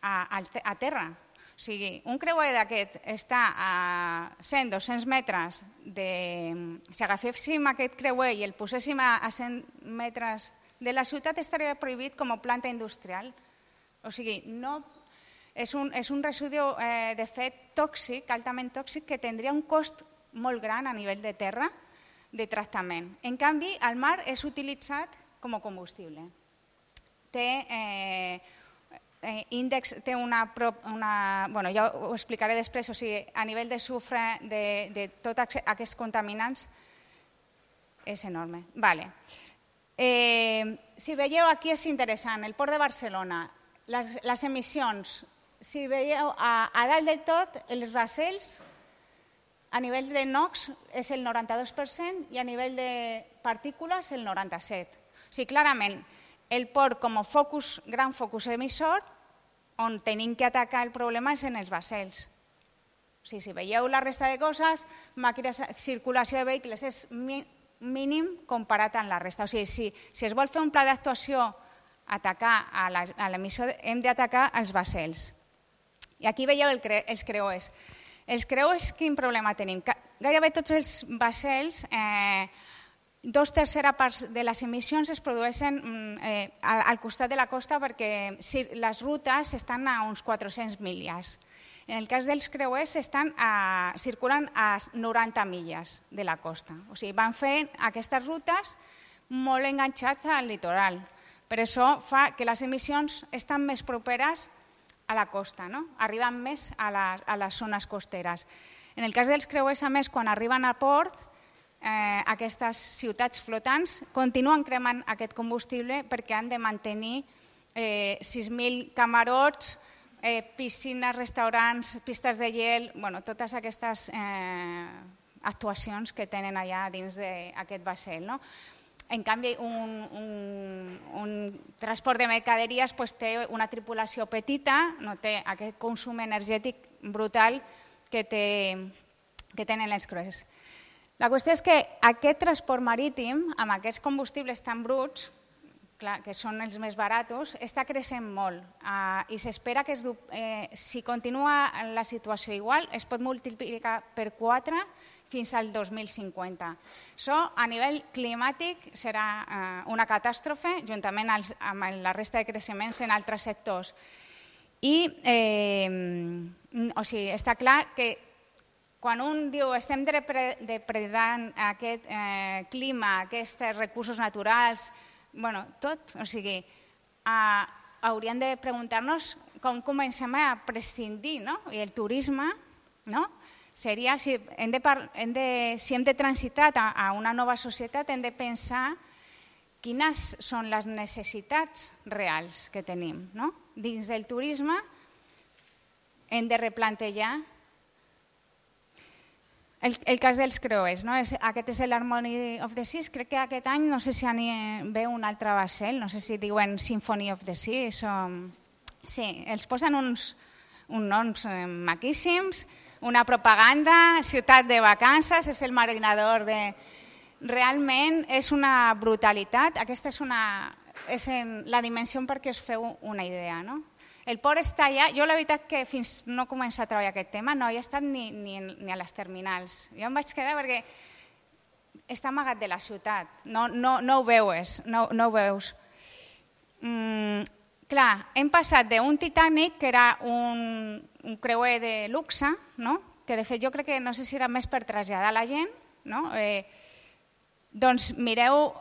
a terra. O sigui, un creuer d'aquest està a 100-200 metres. Si agaféssim aquest creuer i el poséssim a 100 metres de la ciutat, estaria prohibit com a planta industrial. O sigui, és un residu de fet tòxic, altament tòxic, que tindria un cost molt gran a nivell de terra de tractament. En canvi, al mar és utilitzat com a combustible. Té índex, té bueno, ja ho explicaré després, o sigui, a nivell de sufre de tots aquests contaminants és enorme. Si veieu, aquí és interessant, el Port de Barcelona, les emissions, si veieu, a dalt del tot, els vaixells, a nivell de NOx és el 92% i a nivell de partícules el 97%. O sigui, clarament, el port com a gran focus emissor, on tenim que atacar el problema és en els vaixells. O sigui, si veieu la resta de coses, circulació de vehicles és mínim comparat amb la resta. O sigui, si es vol fer un pla d'actuació atacar a l'emissió, hem d'atacar els vaixells. I aquí veieu els creuers. Els creuers, quin problema tenim? Gairebé tots els vaixells, 2/3 parts de les emissions es produeixen al costat de la costa perquè les rutes estan a uns 400 milles. En el cas dels creuers circulen a 90 milles de la costa. O sigui, van fent aquestes rutes molt enganxats al litoral. Per això fa que les emissions estan més properes a la costa, arriben més a les zones costeres. En el cas dels creuers, a més, quan arriben a port, aquestes ciutats flotants continuen cremant aquest combustible perquè han de mantenir 6.000 camarots, piscines, restaurants, pistes de gel, totes aquestes actuacions que tenen allà dins d'aquest vaixell. En canvi, un transport de mercaderies té una tripulació petita, no té aquest consum energètic brutal que tenen els creuers. La qüestió és que aquest transport marítim, amb aquests combustibles tan bruts, que són els més barats, està creixent molt i s'espera que si continua la situació igual es pot multiplicar per 4 fins al 2050. Això a nivell climàtic serà una catàstrofe juntament amb la resta de creixements en altres sectors. I està clar que quan un diu estem depredant aquest clima, aquests recursos naturals, tot, o sigui, hauríem de preguntar-nos com comencem a prescindir, i el turisme seria, si hem de transitar a una nova societat, hem de pensar quines són les necessitats reals que tenim. No? Dins del turisme hem de replantejar el cas dels creuers. No? Aquest és l'Harmony of the Seas. Crec que aquest any, no sé si ve un altre vaixell, no sé si diuen Symphony of the Seas. Sí, els posen uns noms maquíssims, una propaganda, ciutat de vacances, és el marinador de... Realment és una brutalitat. Aquesta és la dimensió perquè us feu una idea. No? El port està allà. Jo la veritat que fins no començar a treballar aquest tema no he estat ni a les terminals. Jo em vaig quedar perquè està amagat de la ciutat. No ho veus. No ho veus. Clar, hem passat d'un Titanic, que era un creuer de luxe, no? Que de fet jo crec que no sé si era més per traslladar la gent, no? Doncs mireu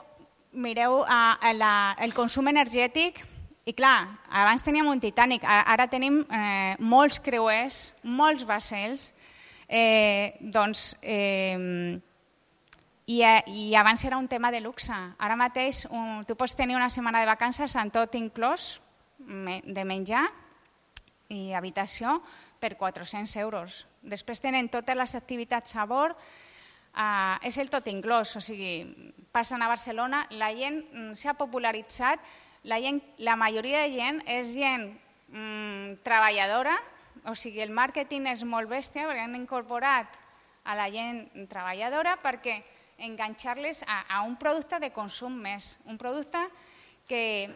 el consum energètic i clar, abans teníem un Titanic, ara tenim molts creuers, molts vaixells, i abans era un tema de luxe. Ara mateix tu pots tenir una setmana de vacances amb tot inclòs, de menjar i habitació per 400 euros. Després tenen totes les activitats a bord, és el tot inclòs, o sigui, passen a Barcelona, la gent s'ha popularitzat, la majoria de gent és gent treballadora, o sigui, el màrqueting és molt bèstia perquè han incorporat a la gent treballadora perquè enganxar-les a un producte de consum més, un producte que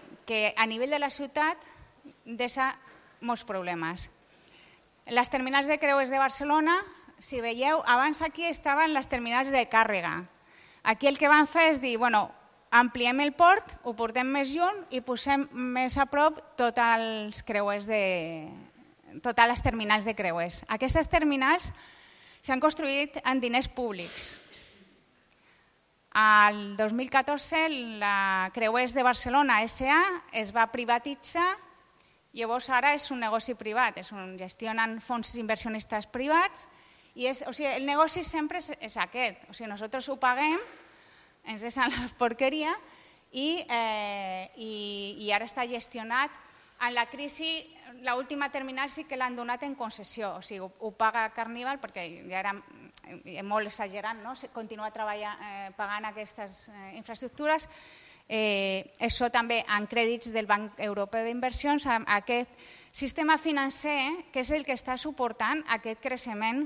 a nivell de la ciutat deixa molts problemes. Les terminals de creuers de Barcelona, si veieu, abans aquí estaven les terminals de càrrega. Aquí el que van fer és dir, bueno, ampliem el port, ho portem més lluny i posem més a prop totes les terminals de creuers. Aquestes terminals s'han construït amb diners públics. Al 2014 la Creuers de Barcelona S.A. es va privatitzar, llavors ara és un negoci privat, gestionen fons inversionistes privats i el negoci sempre és aquest, nosaltres ho paguem, ens deixen la porqueria i ara està gestionat. En la crisi, l'última terminal sí que l'han donat en concessió, o sigui, ho paga Carnival perquè ja era molt exagerat, no? Continuar pagant aquestes infraestructures. Això també en crèdits del Banc Europeu d'Inversions, aquest sistema financer que és el que està suportant aquest creixement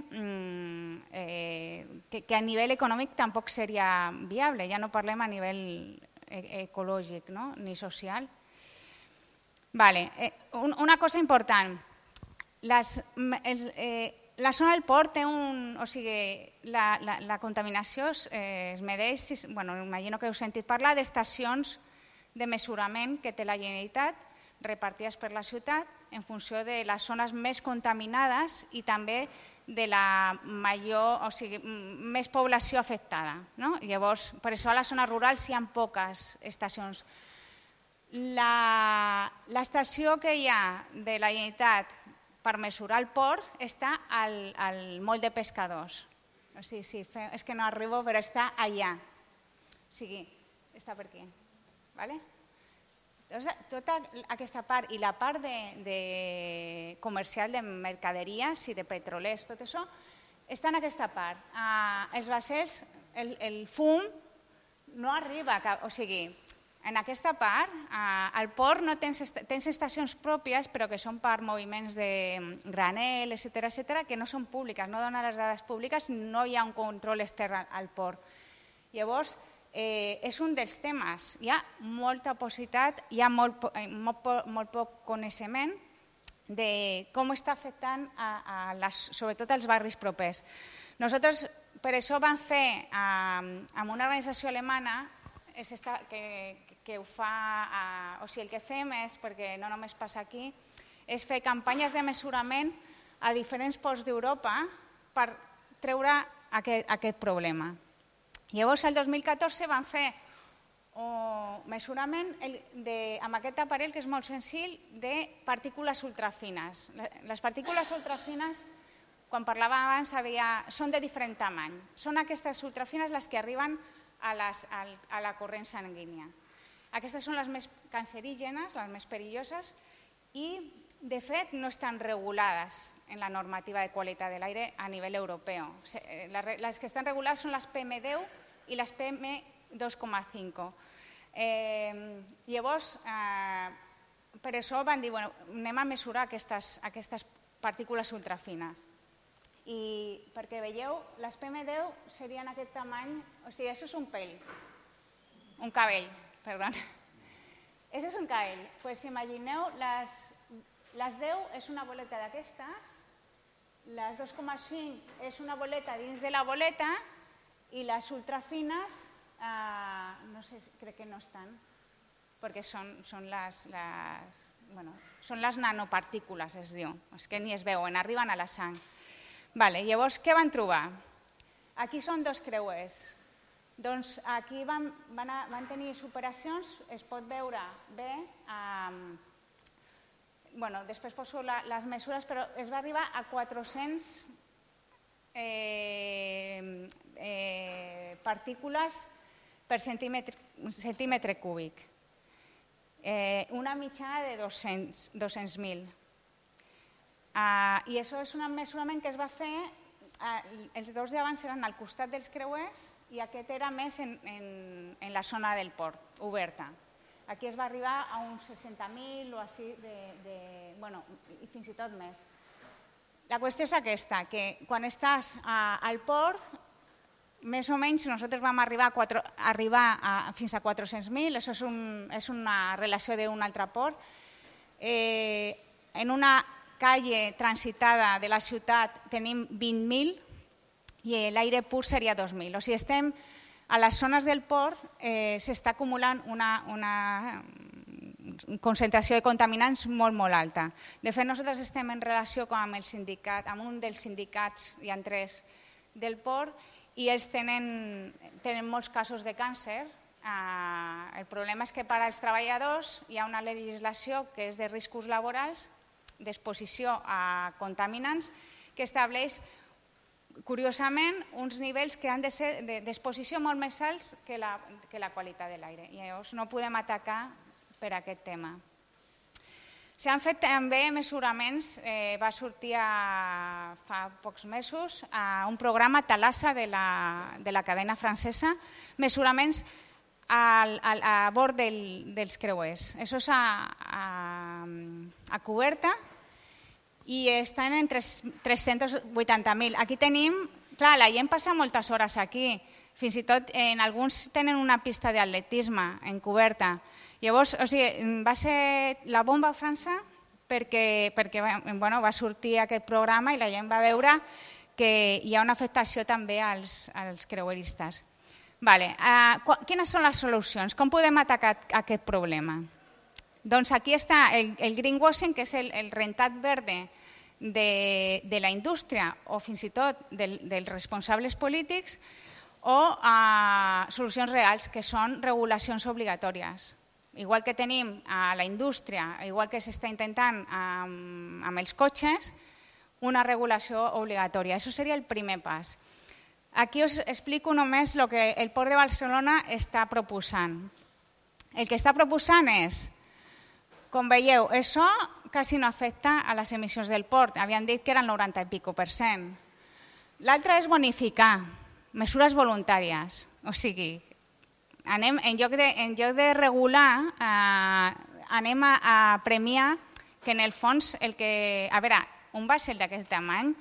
que a nivell econòmic tampoc seria viable, ja no parlem a nivell ecològic ni social. Una cosa important, la zona del port té la contaminació es medeix, imagino que heu sentit parlar d'estacions de mesurament que té la Generalitat repartides per la ciutat en funció de les zones més contaminades i també de la més població afectada. Llavors, per això a les zones rurals hi ha poques estacions. L'estació que hi ha de la Generalitat per mesurar el port està al moll de pescadors. És que no arribo, però està allà. O sigui, està per aquí. Tota aquesta part i la part comercial de mercaderies i de petrolers, tot això, està en aquesta part. Els vaixells, el fum no arriba, o sigui, en aquesta part, al port no tens estacions pròpies, però que són per moviments de granel, etcètera, que no són públiques, no donen les dades públiques, no hi ha un control extern al port. Llavors, és un dels temes. Hi ha molta possibilitat, hi ha molt poc coneixement de com està afectant sobretot als barris propers. Nosaltres, per això vam fer amb una organització alemana que ho fa, o sigui, el que fem és, perquè no només passa aquí, és fer campanyes de mesurament a diferents ports d'Europa per treure aquest problema. Llavors, el 2014 vam fer un mesurament amb aquest aparell, que és molt senzill, de partícules ultrafines. Les partícules ultrafines, quan parlàvem abans, són de diferent tamany. Són aquestes ultrafines les que arriben a la corrent sanguínia. Aquestes són les més cancerígenes, les més perilloses, i de fet no estan regulades en la normativa de qualitat de l'aire a nivell europeu. Les que estan regulades són les PM10 i les PM2,5. Llavors, per això van dir, anem a mesurar aquestes partícules ultrafines. I perquè veieu, les PM10 serien aquest tamany, o sigui, això és un cabell, perdó. Això és un cabell. Doncs imagineu, les 10 és una boleta d'aquestes, les 2,5 és una boleta dins de la boleta i les ultrafines, no sé, crec que no estan, perquè són les nanopartícules, es diu. És que ni es veuen, arriben a la sang. Llavors, què van trobar? Aquí són dos creuers. Doncs aquí van tenir superacions, es pot veure bé, després poso les mesures, però es va arribar a 400 partícules per centímetre cúbic, una mitjana de 200.000. I això és un mesurament que es va fer, els dos d'abans eren al costat dels creuers i aquest era més en la zona del port, oberta. Aquí es va arribar a uns 60.000 o així, i fins i tot més. La qüestió és aquesta, que quan estàs al port, més o menys nosaltres vam arribar fins a 400.000, això és una relació d'un altre port. En una calle transitada de la ciutat tenim 20.000 i l'aire pur seria 2.000. O sigui, estem a les zones del port, s'està acumulant una concentració de contaminants molt, molt alta. De fet, nosaltres estem en relació amb un dels sindicats, hi ha 3 del port, i ells tenen molts casos de càncer. El problema és que per als treballadors hi ha una legislació que és de riscos laborals, d'exposició a contaminants, que estableix, curiosament, uns nivells que han de ser d'exposició molt més alts que la qualitat de l'aire. I llavors no podem atacar per aquest tema. S'han fet també mesuraments, va sortir fa pocs mesos un programa Thalassa de la cadena francesa, mesuraments a bord dels creuers. Això és a coberta i estan en 380.000. Aquí tenim, clar, la gent passa moltes hores aquí, fins i tot en alguns tenen una pista d'atletisme en coberta. Llavors, va ser la bomba a França perquè va sortir aquest programa i la gent va veure que hi ha una afectació també als creueristes. Quines són les solucions? Com podem atacar aquest problema? Doncs aquí està el greenwashing, que és el rentat verde de la indústria o fins i tot dels responsables polítics, o solucions reals, que són regulacions obligatòries. Igual que tenim a la indústria, igual que s'està intentant amb els cotxes, una regulació obligatòria. Això seria el primer pas. Aquí us explico només el que el Port de Barcelona està proposant. El que està proposant és, com veieu, això quasi no afecta a les emissions del port. Havien dit que era el 90 i pico %. L'altre és bonificar, mesures voluntàries. O sigui, en lloc de regular, anem a premiar que en el fons, a veure, un vaixell d'aquest tamany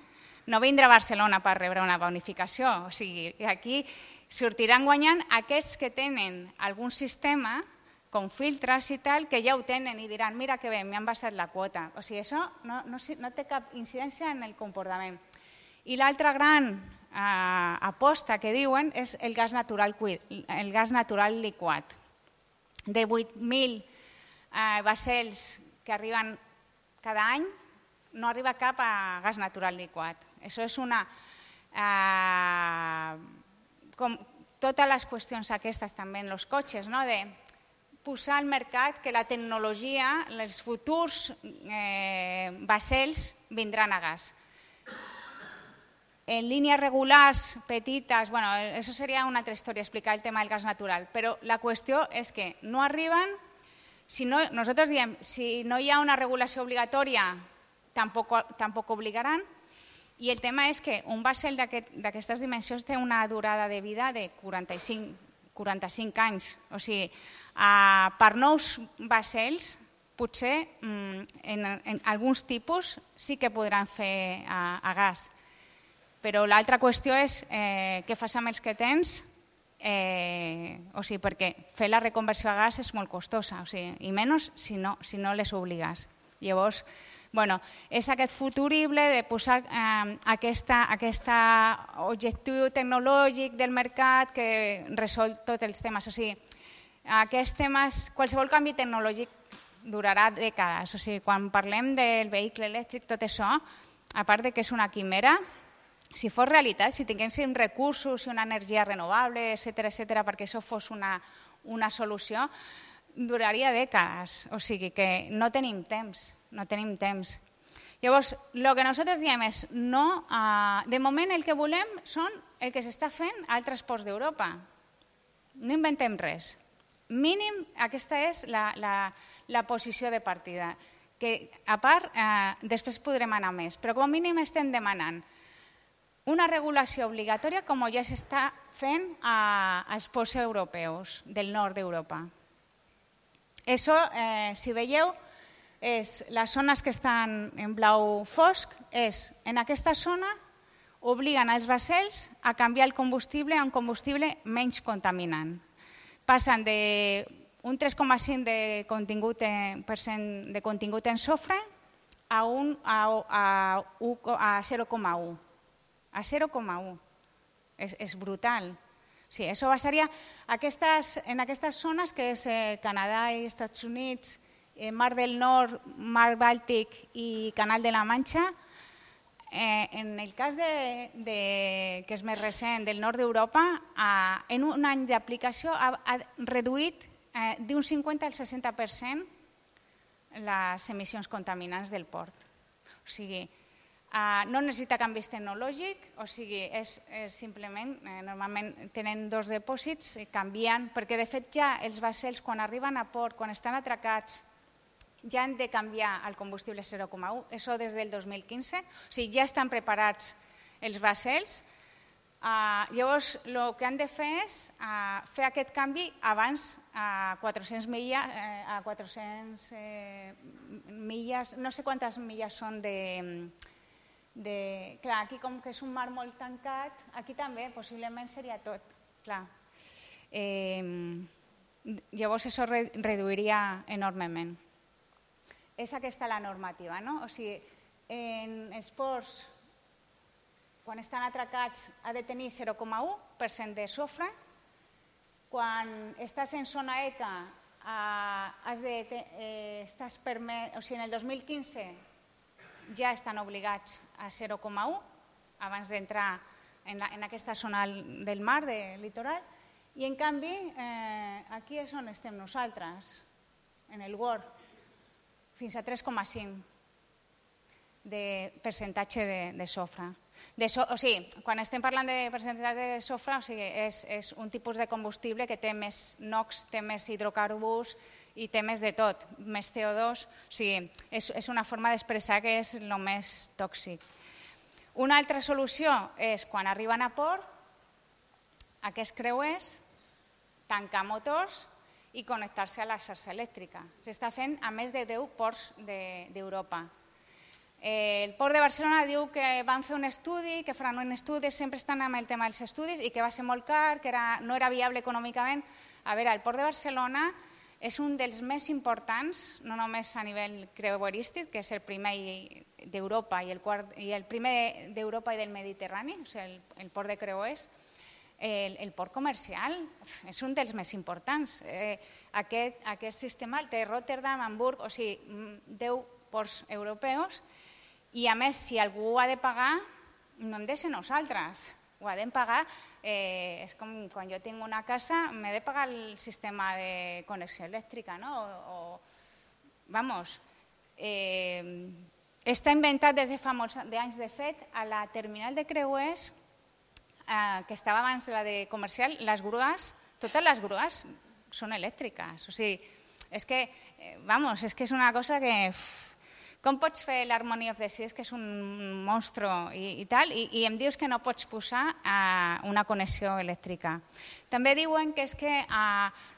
no vindrà a Barcelona per rebre una bonificació. O sigui, aquí sortiran guanyant aquests que tenen algun sistema com filtres i tal, que ja ho tenen i diran, mira que bé, m'han baixat la quota. O sigui, això no té cap incidència en el comportament. I l'altra gran aposta que diuen és el gas natural liquat. De 8.000 vaixells que arriben cada any, no arriba cap a gas natural liquat. Això és com totes les qüestions aquestes també en els cotxes, de posar al mercat que la tecnologia, els futurs vaixells vindran a gas. en línies regulars, petites, bueno, això seria una altra història, explicar el tema del gas natural, però la qüestió és que no arriben, nosaltres diem, si no hi ha una regulació obligatòria, tampoc obligaran, i el tema és que un vaixell d'aquestes dimensions té una durada de vida de 45 anys, o sigui, per nous vaixells, potser en alguns tipus sí que podran fer a gas, però l'altra qüestió és què fas amb els que tens, o sigui, perquè fer la reconversió a gas és molt costosa, o sigui, i menys si no les obligues. Llavors, bueno, és aquest futurible de posar aquest objectiu tecnològic del mercat que resol tots els temes. O sigui, aquests temes, qualsevol canvi tecnològic durarà dècades. O sigui, quan parlem del vehicle elèctric, tot això, a part de que és una quimera, si fos realitat, si tinguéssim recursos i una energia renovable, etcètera, perquè això fos una solució, duraria dècades. O sigui que no tenim temps. Llavors, el que nosaltres diem és de moment el que volem són el que s'està fent a altres ports d'Europa. No inventem res. Mínim, aquesta és la posició de partida, que a part després podrem anar més, però com a mínim estem demanant una regulació obligatòria com ja s'està fent als ports europeus del nord d'Europa. Això, si veieu, les zones que estan en blau fosc, en aquesta zona obliguen els vaixells a canviar el combustible a un combustible menys contaminant. Passen d'un 3,5% de contingut en sofre a 0,1%. A 0,1%. És brutal. Sí, això passaria en aquestes zones que és Canadà i Estats Units, Mar del Nord, Mar Bàltic i Canal de la Manxa. En el cas que és més recent del nord d'Europa, en un any d'aplicació ha reduït d'un 50 al 60% les emissions contaminants del port. O sigui, no necessita canvis tecnològics, o sigui, és simplement, normalment tenen dos depòsits, canvien, perquè de fet ja els vaixells quan arriben a port, quan estan atracats, ja han de canviar el combustible 0,1, això des del 2015, o sigui, ja estan preparats els vaixells. Llavors, el que han de fer és fer aquest canvi abans a 400 milles, no sé quantes milles són clar, aquí com que és un mar molt tancat, aquí també possiblement seria tot, clar. Llavors això reduiria enormement. És aquesta la normativa, no? O sigui, en els ports, quan estan atracats, ha de tenir 0,1% de sofre. Quan estàs en zona ECA, estàs permès, o sigui, en el 2015 ja estan obligats a 0,1 abans d'entrar en aquesta zona del mar, del litoral, i en canvi aquí és on estem nosaltres, en el GOR, fins a 3,5 de percentatge de sofre. O sigui, quan estem parlant de percentatge de sofre, és un tipus de combustible que té més NOx, té més hidrocarburs i té més de tot, més CO2. O sigui, és una forma d'expressar que és el més tòxic. Una altra solució és, quan arriben a port, aquests creuers, tancar motors i connectar-se a la xarxa elèctrica. S'està fent a més de 10 ports d'Europa. El Port de Barcelona diu que van fer un estudi, que faran un estudi, sempre estan amb el tema dels estudis, i que va ser molt car, que no era viable econòmicament. A veure, el Port de Barcelona és un dels més importants, no només a nivell creuerístic, que és el primer d'Europa i el primer d'Europa i del Mediterrani, o sigui, el port de creuers. El port comercial és un dels més importants. Aquest sistema el té Rotterdam, Hamburg, o sigui, 10 ports europeus, i a més, si algú ha de pagar, no hem de ser nosaltres, ho ha de pagar. És com quan jo tinc una casa, m'he de pagar el sistema de connexió elèctrica, no? Vamos, està inventat des de fa molts anys. De fet, a la terminal de creuers, que estava abans la de comercial, les grues, totes les grues són elèctriques. O sigui, és que és una cosa que... Com pots fer l'Harmony of the Seas, que és un monstru i tal, i em dius que no pots posar una connexió elèctrica. També diuen que és que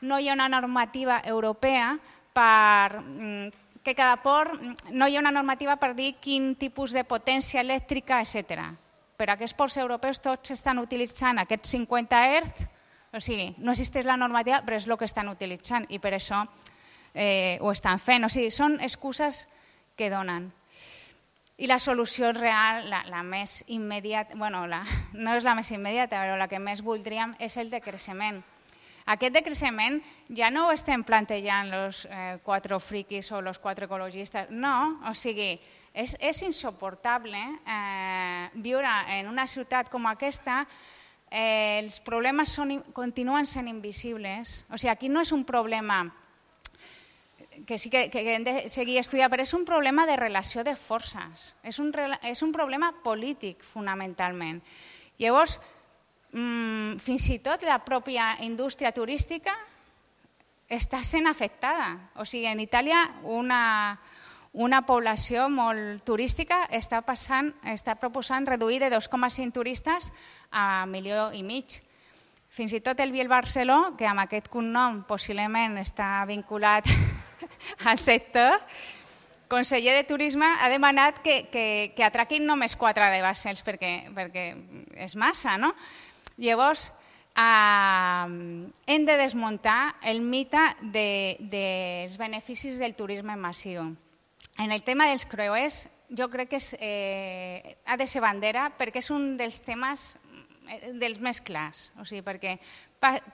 no hi ha una normativa europea que cada port no hi ha una normativa per dir quin tipus de potència elèctrica, etc. Però aquests ports europeus tots estan utilitzant aquests 50 Hz, o sigui, no existeix la normativa, però és el que estan utilitzant i per això ho estan fent. O sigui, són excuses que donen. I la solució real, la més immediata, no és la més immediata, però la que més voldríem és el decreixement. Aquest decreixement ja no ho estem plantejant els 4 friquis o els 4 ecologistes, no, o sigui, és insuportable viure en una ciutat com aquesta. Els problemes continuen sent invisibles, o sigui, aquí no és un problema que sí que hem de seguir estudiant, però és un problema de relació de forces, és un problema polític fonamentalment. Llavors, fins i tot la pròpia indústria turística està sent afectada. O sigui, en Itàlia una població molt turística està proposant reduir de 2,5 turistes a 1,5 milions. Fins i tot el Biel Barceló, que amb aquest cognom possiblement està vinculat al sector, conseller de Turisme ha demanat que atraquin només 4 de vaixells perquè és massa, no? Llavors, hem de desmuntar el mite dels beneficis del turisme massiu. En el tema dels creuers, jo crec que ha de ser bandera perquè és un dels temes dels més clars, o sigui, perquè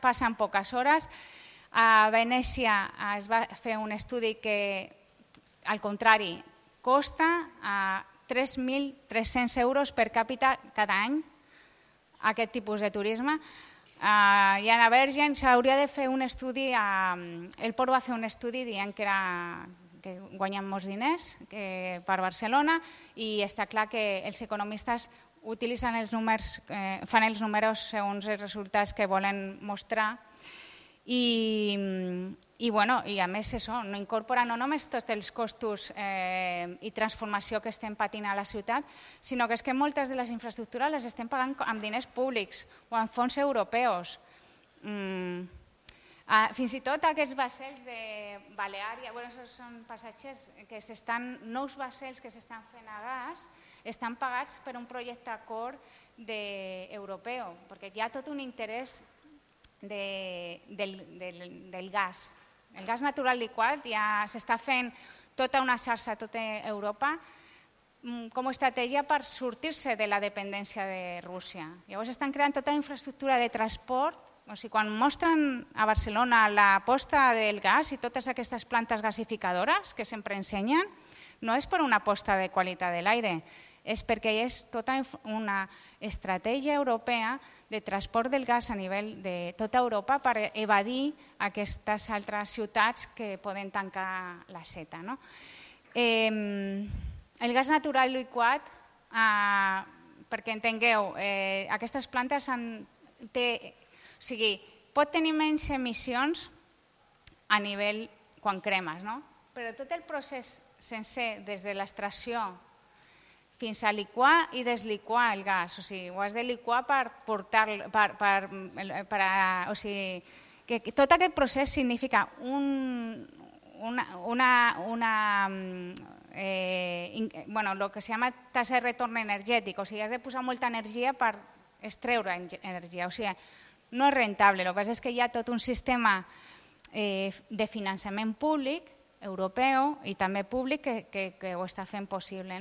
passen poques hores. A Venècia es va fer un estudi que, al contrari, costa 3.300 euros per càpita cada any aquest tipus de turisme. I a Bergen s'hauria de fer un estudi, el Port va fer un estudi dient que guanyen molts diners per Barcelona i està clar que els economistes utilitzen els números, fan els números segons els resultats que volen mostrar. I a més no incorpora no només tots els costos i transformació que estem patint a la ciutat, sinó que és que moltes de les infraestructures les estem pagant amb diners públics o amb fons europeus. Fins i tot aquests vaixells de Baleària, són passatgers, nous vaixells que s'estan fent a gas, estan pagats per un projecte acord europeu, perquè hi ha tot un interès del gas. El gas natural liquat ja s'està fent tota una xarxa a tota Europa com a estratègia per sortir-se de la dependència de Rússia. Llavors estan creant tota la infraestructura de transport. O sigui, quan mostren a Barcelona l'aposta del gas i totes aquestes plantes gasificadores que sempre ensenyen, no és per una aposta de qualitat de l'aire, és perquè és tota una estratègia europea de transport del gas a nivell de tota Europa per evadir aquestes altres ciutats que poden tancar la seta. El gas natural liquat, perquè entengueu, aquestes plantes pot tenir menys emissions a nivell quan cremes, però tot el procés sencer, des de l'extracció fins a liquar i desliquar el gas. O sigui, ho has de liquar per portar-lo, o sigui, que tot aquest procés significa el que se llama tasa de retorn energètic, o sigui, has de posar molta energia per extreure energia, o sigui, no és rentable. El que passa és que hi ha tot un sistema de finançament públic, europeu i també públic que ho està fent possible.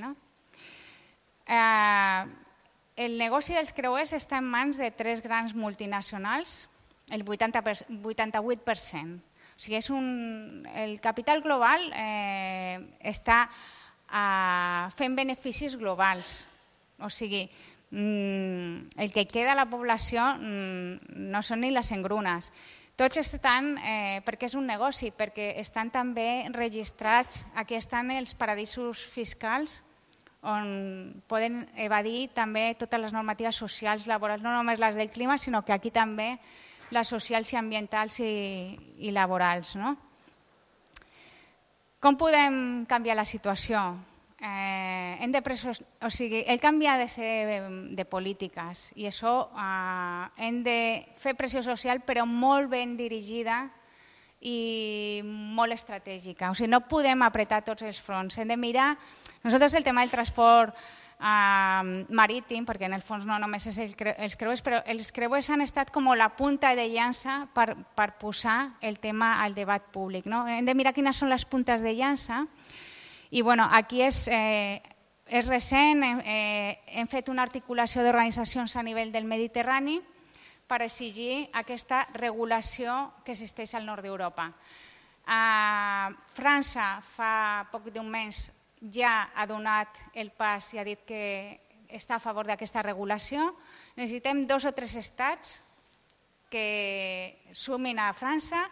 El negoci dels creuers està en mans de 3 grans multinacionals, el 88%. O sigui, el capital global està fent beneficis globals. O sigui, el que queda a la població no són ni les engrunes. Tots estan, perquè és un negoci, perquè estan també registrats, aquí estan els paradisos fiscals on poden evadir també totes les normatives socials, laborals, no només les del clima, sinó que aquí també les socials i ambientals i laborals. No? Com podem canviar la situació? El canvi ha de ser de polítiques i això hem de fer pressió social però molt ben dirigida i molt estratègica. O sigui, no podem apretar tots els fronts. Hem de mirar, nosaltres el tema del transport marítim, perquè en el fons no només és els creuers, però els creuers han estat com la punta de llança per posar el tema al debat públic. No? Hem de mirar quines són les puntes de llança i aquí és recent, hem fet una articulació d'organitzacions a nivell del Mediterrani per exigir aquesta regulació que existeix al nord d'Europa. França fa poc d'un mes ja ha donat el pas i ha dit que està a favor d'aquesta regulació. Necessitem 2 o 3 estats que sumin a França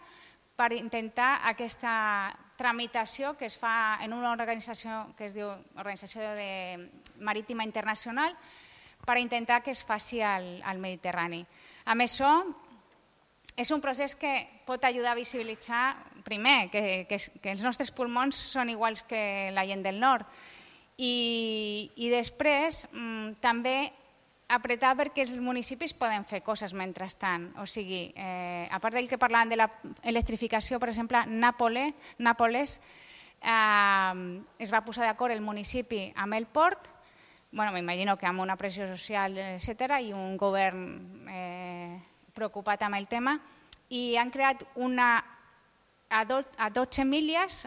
per intentar aquesta tramitació que es fa en una organització que es diu Organització Marítima Internacional per intentar que es faci al Mediterrani. A més, és un procés que pot ajudar a visibilitzar, primer, que els nostres pulmons són iguals que la gent del nord i després també apretar perquè els municipis poden fer coses mentrestant. O sigui, a part del que parlàvem de l'electrificació, per exemple, Nàpoles es va posar d'acord el municipi amb el port, m'imagino que amb una pressió social, etc., i un govern preocupat amb el tema, i han creat a 12 milles,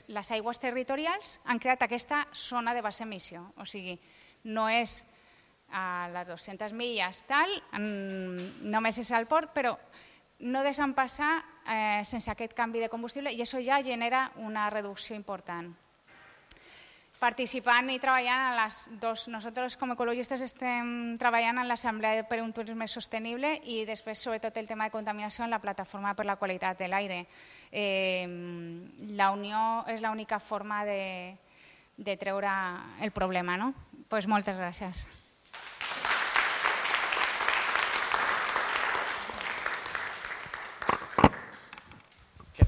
les aigües territorials, han creat aquesta zona de baixa emissió. O sigui, no és a les 200 milles tal, només és al port, però no deixen passar sense aquest canvi de combustible i això ja genera una reducció important. Participant i treballant en les dues, nosaltres com ecologistes estem treballant en l'Assemblea per un turisme sostenible i després sobretot el tema de contaminació en la plataforma per la qualitat de l'aire. La unió és l'única forma de treure el problema, no? Doncs moltes gràcies.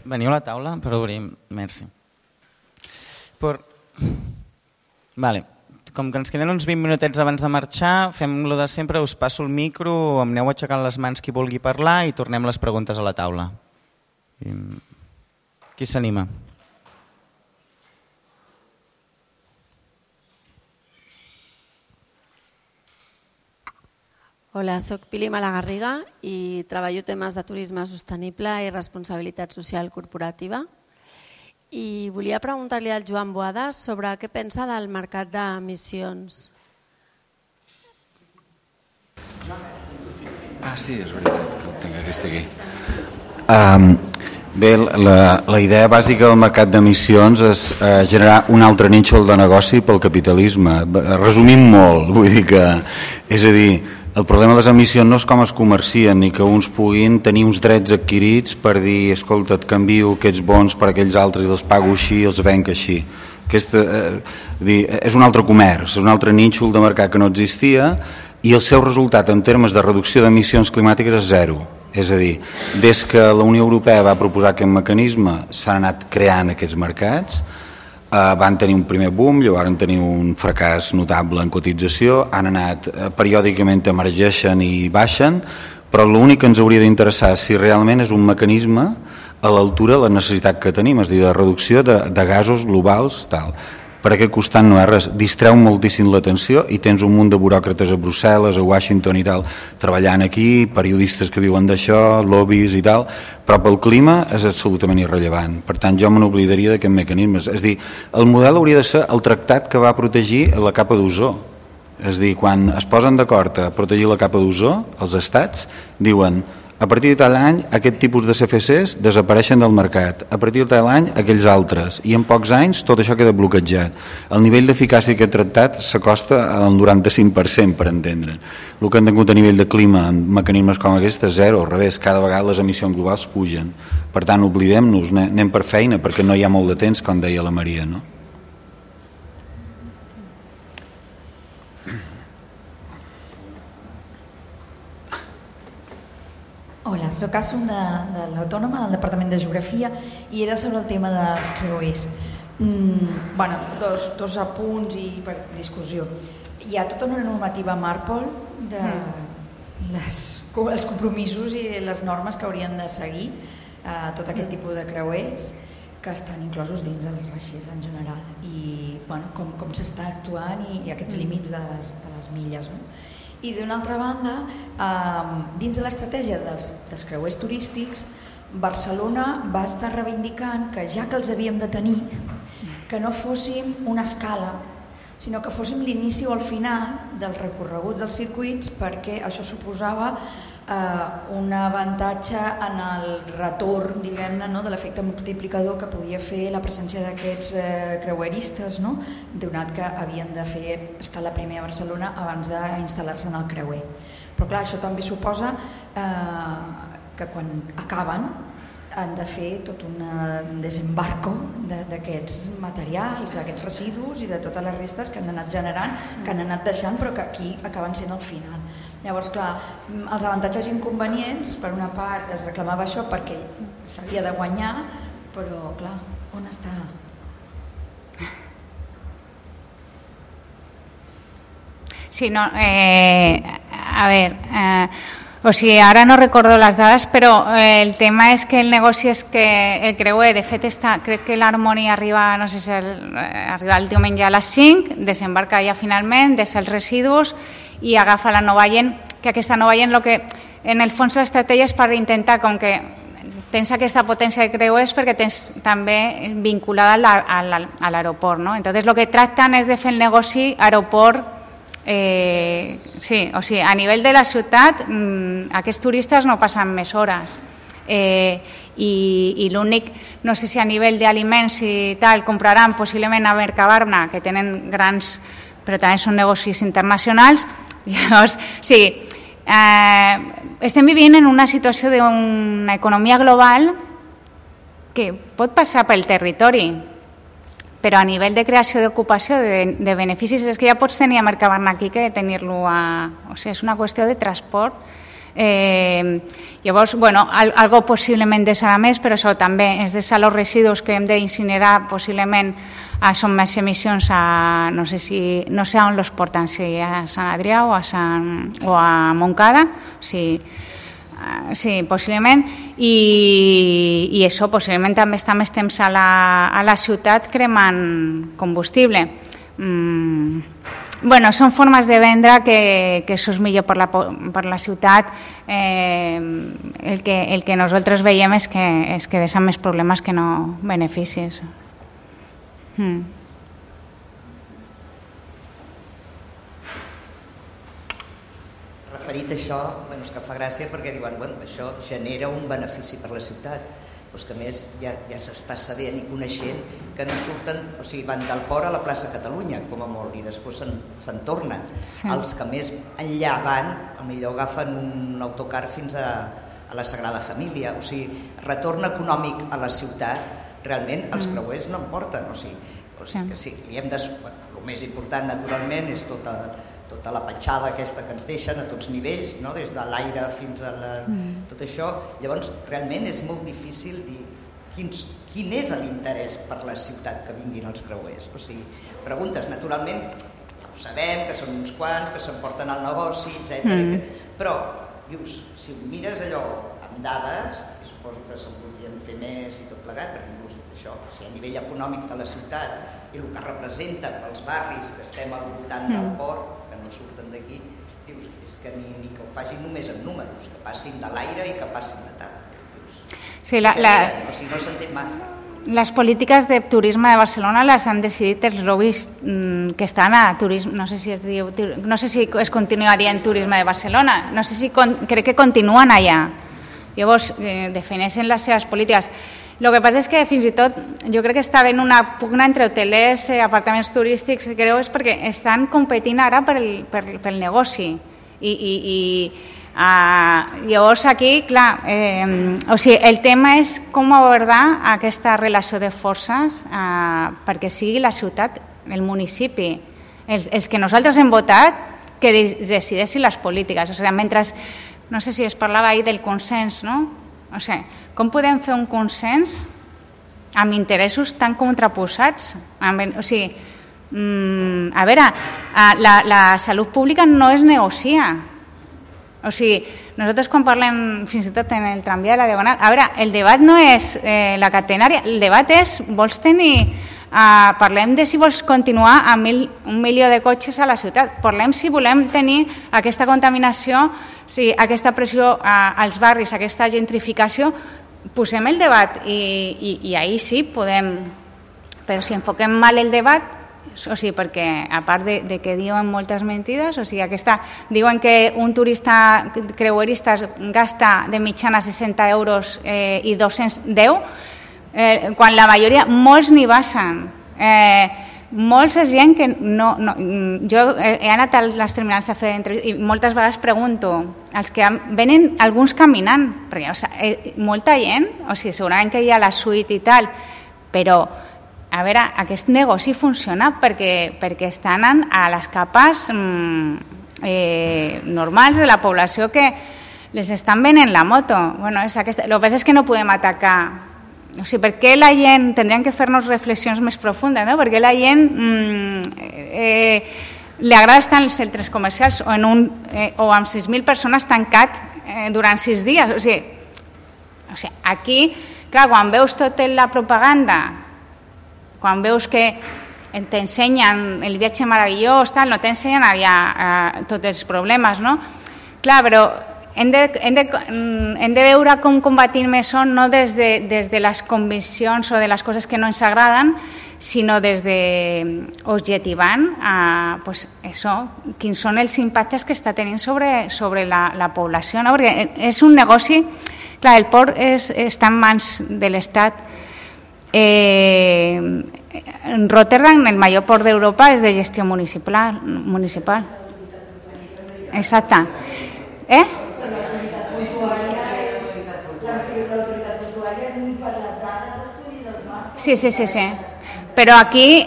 Veniu a la taula per obrir. Merci. Vale. Com que ens queden uns 20 minutets abans de marxar, fem lo de sempre, us passo el micro, em aneu aixecant les mans qui vulgui parlar i tornem les preguntes a la taula. Qui s'anima? Hola, soc Pili Malagarriga i treballo temes de turisme sostenible i responsabilitat social corporativa. I volia preguntar-li al Joan Boada sobre què pensa del mercat d'emissions. Sí, és veritat que el tinc aquest aquí. Bé, la idea bàsica del mercat d'emissions és generar un altre nínxol de negoci pel capitalisme. Resumint molt, vull dir que, és a dir, el problema de les emissions no és com es comercien ni que uns puguin tenir uns drets adquirits per dir, escolta, et canvio aquests bons per aquells altres i els pago així i els venc així. És un altre comerç, és un altre nínxol de mercat que no existia i el seu resultat en termes de reducció d'emissions climàtiques és zero. És a dir, des que la Unió Europea va proposar aquest mecanisme s'han anat creant aquests mercats, van tenir un primer boom, llavors van tenir un fracàs notable en cotització, han anat periòdicament emergeixen i baixen, però l'únic que ens hauria d'interessar és si realment és un mecanisme a l'altura de la necessitat que tenim, és a dir, de reducció de gasos globals, tal. Per aquest costat no és res, distreu moltíssim l'atenció i tens un munt de buròcrates a Brussel·les, a Washington i tal, treballant aquí, periodistes que viuen d'això, lobbies i tal, però pel clima és absolutament irrellevant. Per tant, jo me n'oblidaria d'aquest mecanisme. És a dir, el model hauria de ser el tractat que va protegir la capa d'ozó. És a dir, quan es posen d'acord a protegir la capa d'ozó, els estats diuen a partir de tal any aquest tipus de CFCs desapareixen del mercat, a partir de tal any aquells altres, i en pocs anys tot això queda bloquejat. El nivell d'eficàcia d'aquest tractat s'acosta al 95%, per entendre. El que han tingut a nivell de clima en mecanismes com aquest és zero, al revés, cada vegada les emissions globals pugen. Per tant, oblidem-nos, anem per feina perquè no hi ha molt de temps, com deia la Maria, no? soc Asun de l'Autònoma, del Departament de Geografia, i era sobre el tema dels creuers. Dos apunts i per discussió. Hi ha tota una normativa Marpol els compromisos i les normes que haurien de seguir tot aquest tipus de creuers que estan inclosos dins dels vaixells en general i com s'està actuant i aquests límits de les milles. I d'una altra banda, dins de l'estratègia dels creuers turístics, Barcelona va estar reivindicant que ja que els havíem de tenir, que no fóssim una escala, sinó que fóssim l'inici o el final dels recorreguts dels circuits, perquè això suposava un avantatge en el retorn, diguem-ne, de l'efecte multiplicador que podia fer la presència d'aquests creueristes, donat que havien de fer escala primer a Barcelona abans d'instal·lar-se en el creuer. Però clar, això també suposa que quan acaben han de fer tot un desembarco d'aquests materials, d'aquests residus i de totes les restes que han anat generant, que han anat deixant, però que aquí acaben sent al final. Llavors, clar, els avantatges i inconvenients, per una part es reclamava això perquè s'havia de guanyar, però clar, on està? Sí, no, a ver... O sigui, ara no recordo les dades, però el tema és que el negoci és que el creuer, de fet, crec que l'Harmony arriba, no sé si arriba el diumenge a les 5, desembarca ja finalment, deixa els residus i agafa la Nova Gent, que aquesta Nova Gent, en el fons l'estratègia és per intentar, com que tens aquesta potència de creuers perquè tens també vinculada a l'aeroport, no? Entonces, el que tracten és de fer el negoci aeroport. Sí, o sigui, a nivell de la ciutat aquests turistes no passen més hores i l'únic, no sé si a nivell d'aliments i tal, compraran possiblement a Mercabarna, que tenen grans, però també són negocis internacionals. Llavors, sí, estem vivint en una situació d'una economia global que pot passar pel territori, però a nivell de creació d'ocupació, de beneficis, és que ja pots tenir a Mercabarna aquí que tenir-lo O sigui, és una qüestió de transport. Llavors, algo possiblement deixarà més, però això també és deixar els residus que hem d'incinerar, possiblement són més emissions a... No sé on els porten, si a Sant Adrià o a Montcada, sí, possiblement, i això possiblement també està més temps a la ciutat cremant combustible. Són formes de vendre que això és millor per la ciutat. El que nosaltres veiem és que deixen més problemes que no beneficis. Referit a això, és que fa gràcia perquè diuen això genera un benefici per la ciutat, però que a més ja s'està sabent i coneixent que no surten, o sigui, van del port a la plaça Catalunya, com a molt, i després se'n tornen. Sí. Els que més enllà van, potser agafen un autocar fins a la Sagrada Família, o sigui, retorn econòmic a la ciutat, realment els creuers no en porten, o sigui que sí, el més important naturalment és tota la petjada aquesta que ens deixen a tots nivells, des de l'aire fins a tot això. Llavors, realment és molt difícil dir quin és l'interès per la ciutat que vinguin els creuers. O sigui, preguntes, naturalment, ho sabem, que són uns quants, que s'emporten al negoci, etc. Però, dius, si mires allò amb dades, suposo que se'n podrien fer més i tot plegat, perquè això, a nivell econòmic de la ciutat i el que representa pels barris que estem al voltant del port, que no surten d'aquí, dius, és que ni que ho facin només en números, que passin de l'aire i que passin de tal. Sí, no s'entén massa. Les polítiques de turisme de Barcelona les han decidit els lobbies que estan a turisme, no sé si es continua dient turisme de Barcelona, no sé si crec que continuen allà. Llavors defineixen les seves polítiques. El que passa és que fins i tot jo crec que està havent una pugna entre hotelers, apartaments turístics, creu, és perquè estan competint ara pel negoci. Llavors aquí, clar, el tema és com abordar aquesta relació de forces perquè sigui la ciutat, el municipi, els que nosaltres hem votat, que decideixin les polítiques. O sigui, mentre no sé si es parlava ahir del consens, no? O sigui, com podem fer un consens amb interessos tan contraposats? O sigui, a veure, la salut pública no es negocia. O sigui, nosaltres quan parlem fins i tot en el tramvia de la Diagonal, a veure, el debat no és la catenària, el debat és, vols tenir, parlem de si vols continuar amb 1 milió de cotxes a la ciutat, parlem si volem tenir aquesta contaminació, si aquesta pressió als barris, aquesta gentrificació, posem el debat i ahir sí podem, però si enfoquem mal el debat, o sigui, perquè a part de que diuen moltes mentides, o sigui, diuen que un turista creuerista gasta de mitjana 60 euros i 210, quan la majoria, molts n'hi basen. Molts és gent que no... Jo he anat a les terminals a fer entrevistes i moltes vegades pregunto, els que venen alguns caminant, perquè molta gent, o sigui, segurament que hi ha la suite i tal, però a veure, aquest negoci funciona perquè estan a les capes normals de la població que les estan venent la moto. Bueno, el que passa és que no podem atacar. O sigui, per què la gent... Tindríem que fer-nos reflexions més profundes, no? Per què la gent li agrada estar en els centres comercials o amb 6.000 persones tancat durant 6 dies? O sigui, aquí, clar, quan veus tota la propaganda, quan veus que t'ensenyen el viatge meravellós, no t'ensenyen tots els problemes, no? Clar, però hem de veure com combatim això no des de les conviccions o de les coses que no ens agraden, sinó des d'objectivant quins són els impactes que està tenint sobre la població, no? Perquè és un negoci, clar, el port està en mans de l'Estat. Rotterdam, el major port d'Europa, és de gestió municipal. Exacte. Sí. Però aquí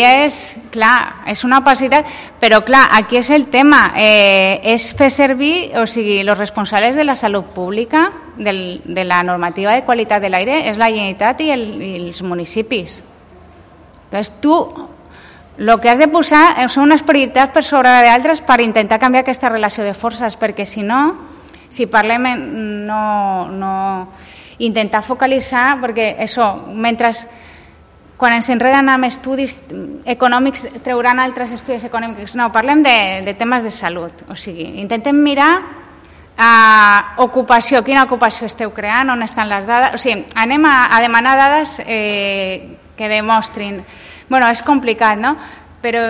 és, clar, és una opacitat, però clar, aquí és el tema, és fer servir, o sigui, els responsables de la salut pública, de la normativa de qualitat de l'aire, és la Generalitat i els municipis. Llavors tu el que has de posar són unes prioritats per sobre d'altres per intentar canviar aquesta relació de forces, perquè si no, si parlem, no intentar focalitzar, perquè això, mentre quan ens enreden amb estudis econòmics trauran altres estudis econòmics, no, parlem de temes de salut, o sigui, intentem mirar ocupació, quina ocupació esteu creant, on estan les dades, o sigui, anem a demanar dades que demostrin. Bueno, és complicat, no? Però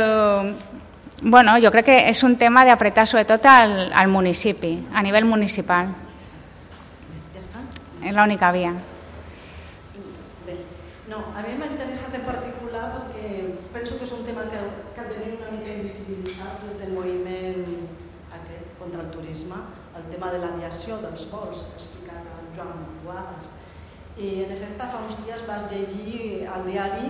bueno, jo crec que és un tema d'apretar sobretot al municipi, a nivell municipal. Ja està? És l'única via. No, a mi m'ha interessat en particular perquè penso que és un tema que ha de tenir una mica invisibilitzat des del moviment aquest contra el turisme, el tema de l'aviació, dels vols, que ha explicat en Joan Boades. I en efecte fa uns dies vas llegir al diari,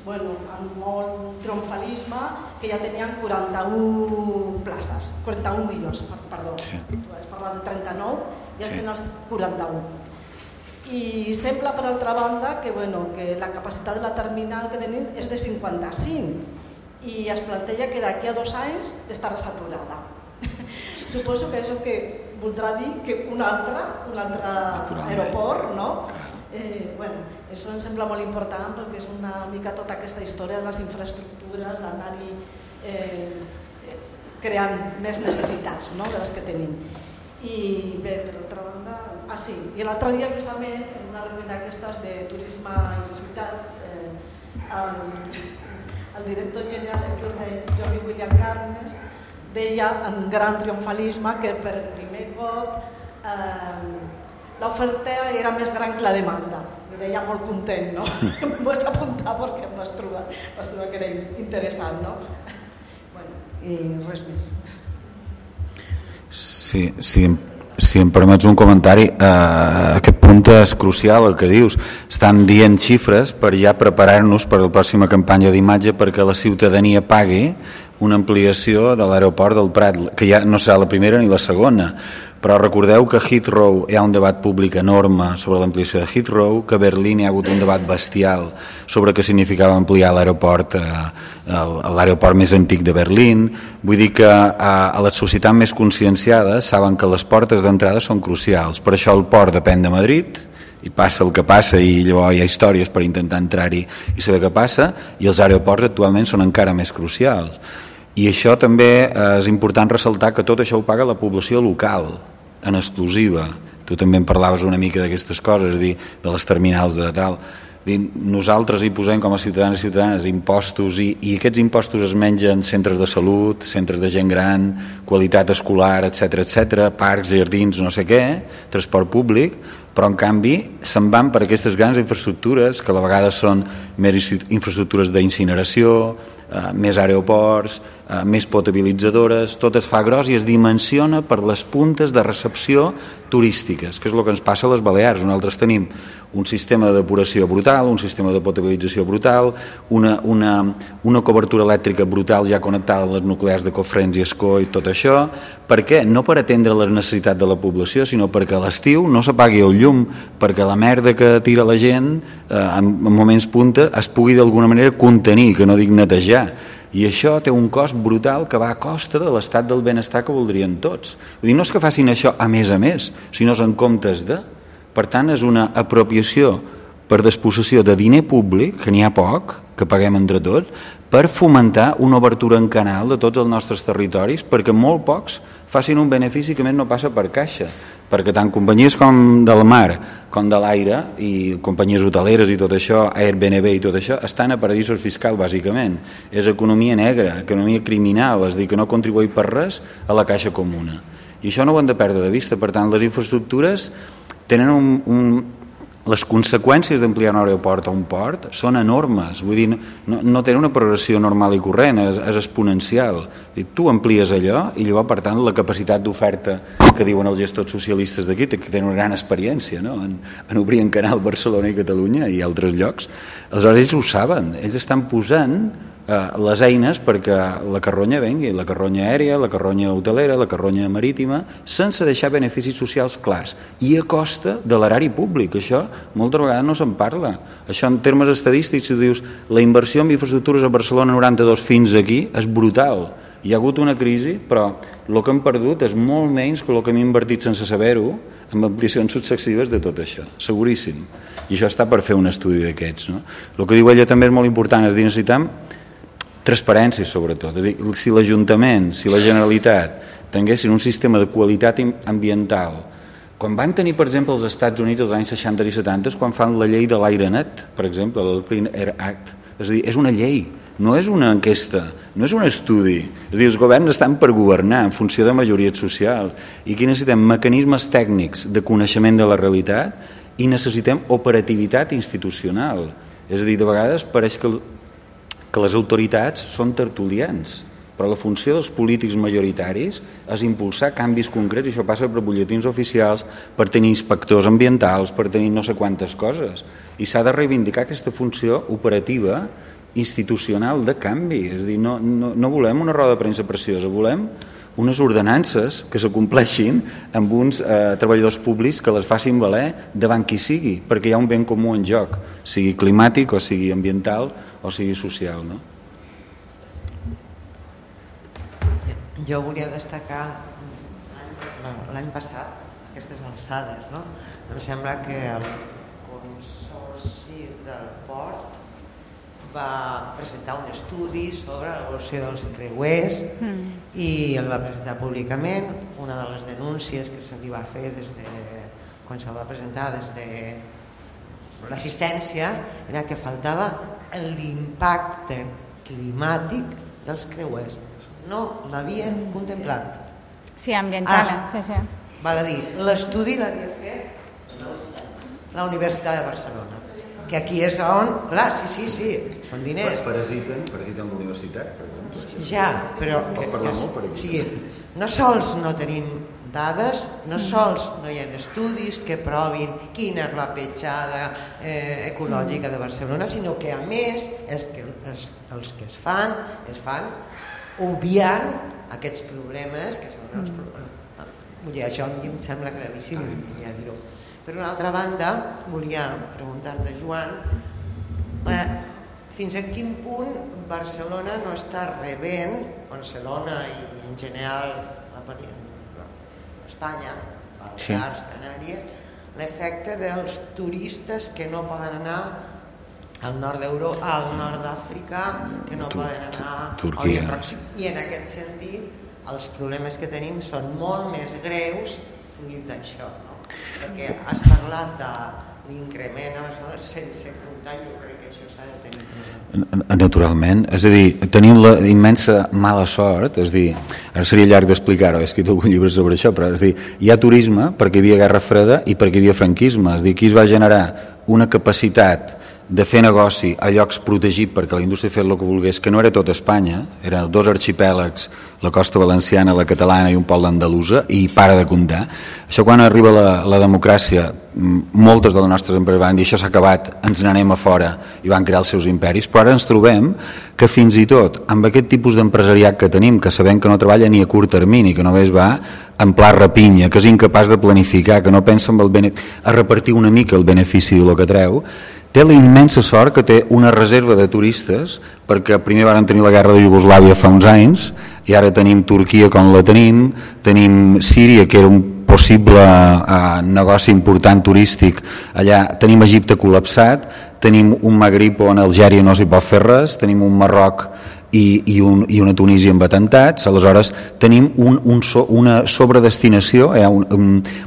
amb molt triomfalisme, que ja tenien 41 places, 41 milions, perdó. Tu has parlat de 39, ja tenen els 41. I sembla, per altra banda, que la capacitat de la terminal que tenim és de 55 i es planteja que d'aquí a 2 anys estarà saturada. Suposo que això que voldrà dir que un altre aeroport, no? Això em sembla molt important perquè és una mica tota aquesta història de les infraestructures, d'anar-hi creant més necessitats de les que tenim. I bé, per altra banda, i l'altre dia justament en una reunió d'aquestes de turisme i ciutat el director general Jordi William Carnes deia en gran triomfalisme que per primer cop l'oferta era més gran que la demanda. Ho deia molt content, no? Em vaig apuntar perquè em vas trobar que era interessant, no? I res més. Sí, si em permets un comentari, aquest punt és crucial el que dius. Estan dient xifres per ja preparar-nos per la pròxima campanya d'imatge perquè la ciutadania pagui una ampliació de l'aeroport del Prat, que ja no serà la primera ni la segona, però recordeu que a Heathrow hi ha un debat públic enorme sobre l'ampliació de Heathrow, que a Berlín hi ha hagut un debat bestial sobre què significava ampliar l'aeroport, l'aeroport més antic de Berlín. Vull dir que a les societats més conscienciades saben que les portes d'entrada són crucials. Per això el port depèn de Madrid, i passa el que passa, i llavors hi ha històries per intentar entrar-hi i saber què passa, i els aeroports actualment són encara més crucials. I això també és important ressaltar que tot això ho paga la població local, en exclusiva. Tu també en parlaves una mica d'aquestes coses, és a dir, de les terminals de tal. Nosaltres hi posem com a ciutadans i ciutadanes impostos, i aquests impostos es mengen centres de salut, centres de gent gran, qualitat escolar, etc, parcs, jardins, no sé què, transport públic, però en canvi se'n van per aquestes grans infraestructures que a la vegada són més infraestructures d'incineració, més aeroports, més potabilitzadores, tot es fa gros i es dimensiona per les puntes de recepció turístiques, que és el que ens passa a les Balears. Nosaltres tenim un sistema de depuració brutal, un sistema de potabilització brutal, una cobertura elèctrica brutal ja connectada a les nuclears de Cofrents i Escó i tot això. Per què? No per atendre les necessitats de la població, sinó perquè a l'estiu no s'apagui el llum, perquè la merda que tira la gent en moments punta es pugui d'alguna manera contenir, que no dic netejar. I això té un cost brutal que va a costa de l'estat del benestar que voldrien tots. Vull dir, no és que facin això a més, sinó en comptes de. Per tant, és una apropiació per disposició de diner públic, que n'hi ha poc, que paguem entre tots, per fomentar una obertura en canal de tots els nostres territoris, perquè molt pocs facin un benefici que més no passa per caixa, perquè tant companyies com del mar com de l'aire i companyies hoteleres i tot això, Airbnb i tot això, estan a paradisos fiscals bàsicament. És economia negra, economia criminal, és a dir, que no contribueix per res a la caixa comuna. I això no ho hem de perdre de vista. Per tant, les infraestructures tenen les conseqüències d'ampliar un aeroport o un port són enormes, vull dir, no tenen una progressió normal i corrent, és exponencial. Tu amplies allò i llavors, per tant, la capacitat d'oferta que diuen els gestors socialistes d'aquí, que tenen una gran experiència, no? en obrir en canal Barcelona i Catalunya i altres llocs, aleshores ells ho saben, ells estan posant les eines perquè la carronya vengui, la carronya aèria, la carronya hotelera, la carronya marítima, sense deixar beneficis socials clars i a costa de l'erari públic. Això moltes vegades no se'n parla. Això en termes estadístics, si dius la inversió en infraestructures a Barcelona 92 fins aquí és brutal. Hi ha hagut una crisi, però el que hem perdut és molt menys que el que hem invertit sense saber-ho amb ampliacions successives de tot això, seguríssim. I això està per fer un estudi d'aquests. No? El que diu ella també és molt important, és dir, necessitem transparència sobretot, és a dir, si l'Ajuntament, si la Generalitat tinguessin un sistema de qualitat ambiental, quan van tenir per exemple els Estats Units als anys 60 i 70, quan fan la llei de l'aire net, per exemple, el Clean Air Act, és a dir, és una llei, no és una enquesta, no és un estudi, és a dir, els governs estan per governar en funció de majories socials, i aquí necessitem mecanismes tècnics de coneixement de la realitat i necessitem operativitat institucional, és a dir, de vegades pareix que les autoritats són tertulians, però la funció dels polítics majoritaris és impulsar canvis concrets, i això passa per butlletins oficials, per tenir inspectors ambientals, per tenir no sé quantes coses, i s'ha de reivindicar aquesta funció operativa institucional de canvi, és a dir, no volem una roda de premsa preciosa, volem unes ordenances que s'acompleixin amb uns treballadors públics que les facin valer davant qui sigui, perquè hi ha un ben comú en joc, sigui climàtic o sigui ambiental o sigui social. No? Jo volia destacar l'any passat aquestes alçades. No? Em sembla que el Consorci del Port va presentar un estudi sobre l'evolució dels creuers i el va presentar públicament. Una de les denúncies que se li va fer quan se'l va presentar des de l'assistència era que faltava l'impacte climàtic dels creuers. No l'havien contemplat. Sí, ambiental. Sí. Val a dir, l'estudi l'havia fet la Universitat de Barcelona. Que aquí és on, clar, sí, són diners. Parasiten la universitat, per exemple. Ja, però no sols no tenim dades, no sols no hi ha estudis que provin quina és la petjada ecològica de Barcelona, sinó que a més els que es fan obviant aquests problemes que són els problemes. Això em sembla gravíssim, volia dir-ho. Per una altra banda, volia preguntar-te, Joan, fins a quin punt Barcelona no està rebent, Barcelona i en general Espanya, Balears, Canàries, l'efecte dels turistes que no poden anar al nord d'Europa, al nord d'Àfrica, que no poden anar a Orient Pròxim. I en aquest sentit, els problemes que tenim són molt més greus fruit d'això, no? Perquè has parlat de l'increment a Barcelona sense comptar, jo crec que això s'ha de tenir present. Naturalment, és a dir, tenim la immensa mala sort, és a dir, ara seria llarg d'explicar-ho, he escrit algun llibre sobre això, però és a dir, hi ha turisme perquè hi havia guerra freda i perquè hi havia franquisme, és a dir, aquí es va generar una capacitat de fer negoci a llocs protegits perquè la indústria fes el que volgués, que no era tot Espanya, eren 2 arxipèlags, la costa valenciana, la catalana i un poble andalusa, i para de comptar. Això quan arriba la democràcia, moltes de les nostres empreses van dir això s'ha acabat, ens n'anem a fora, i van crear els seus imperis, però ara ens trobem que fins i tot amb aquest tipus d'empresariat que tenim, que sabem que no treballa ni a curt termini, que només va en pla rapinya, que és incapaç de planificar, que no pensa en a repartir una mica el benefici del que treu, té la immensa sort que té una reserva de turistes, perquè primer van tenir la guerra de Iugoslàvia fa uns anys i ara tenim Turquia com la tenim Síria, que era un possible negoci important turístic allà, tenim Egipte col·lapsat, tenim un Magrib on a Algèria no s'hi pot fer res, tenim un Marroc i una Tunísia amb atentats. Aleshores tenim una sobredestinació,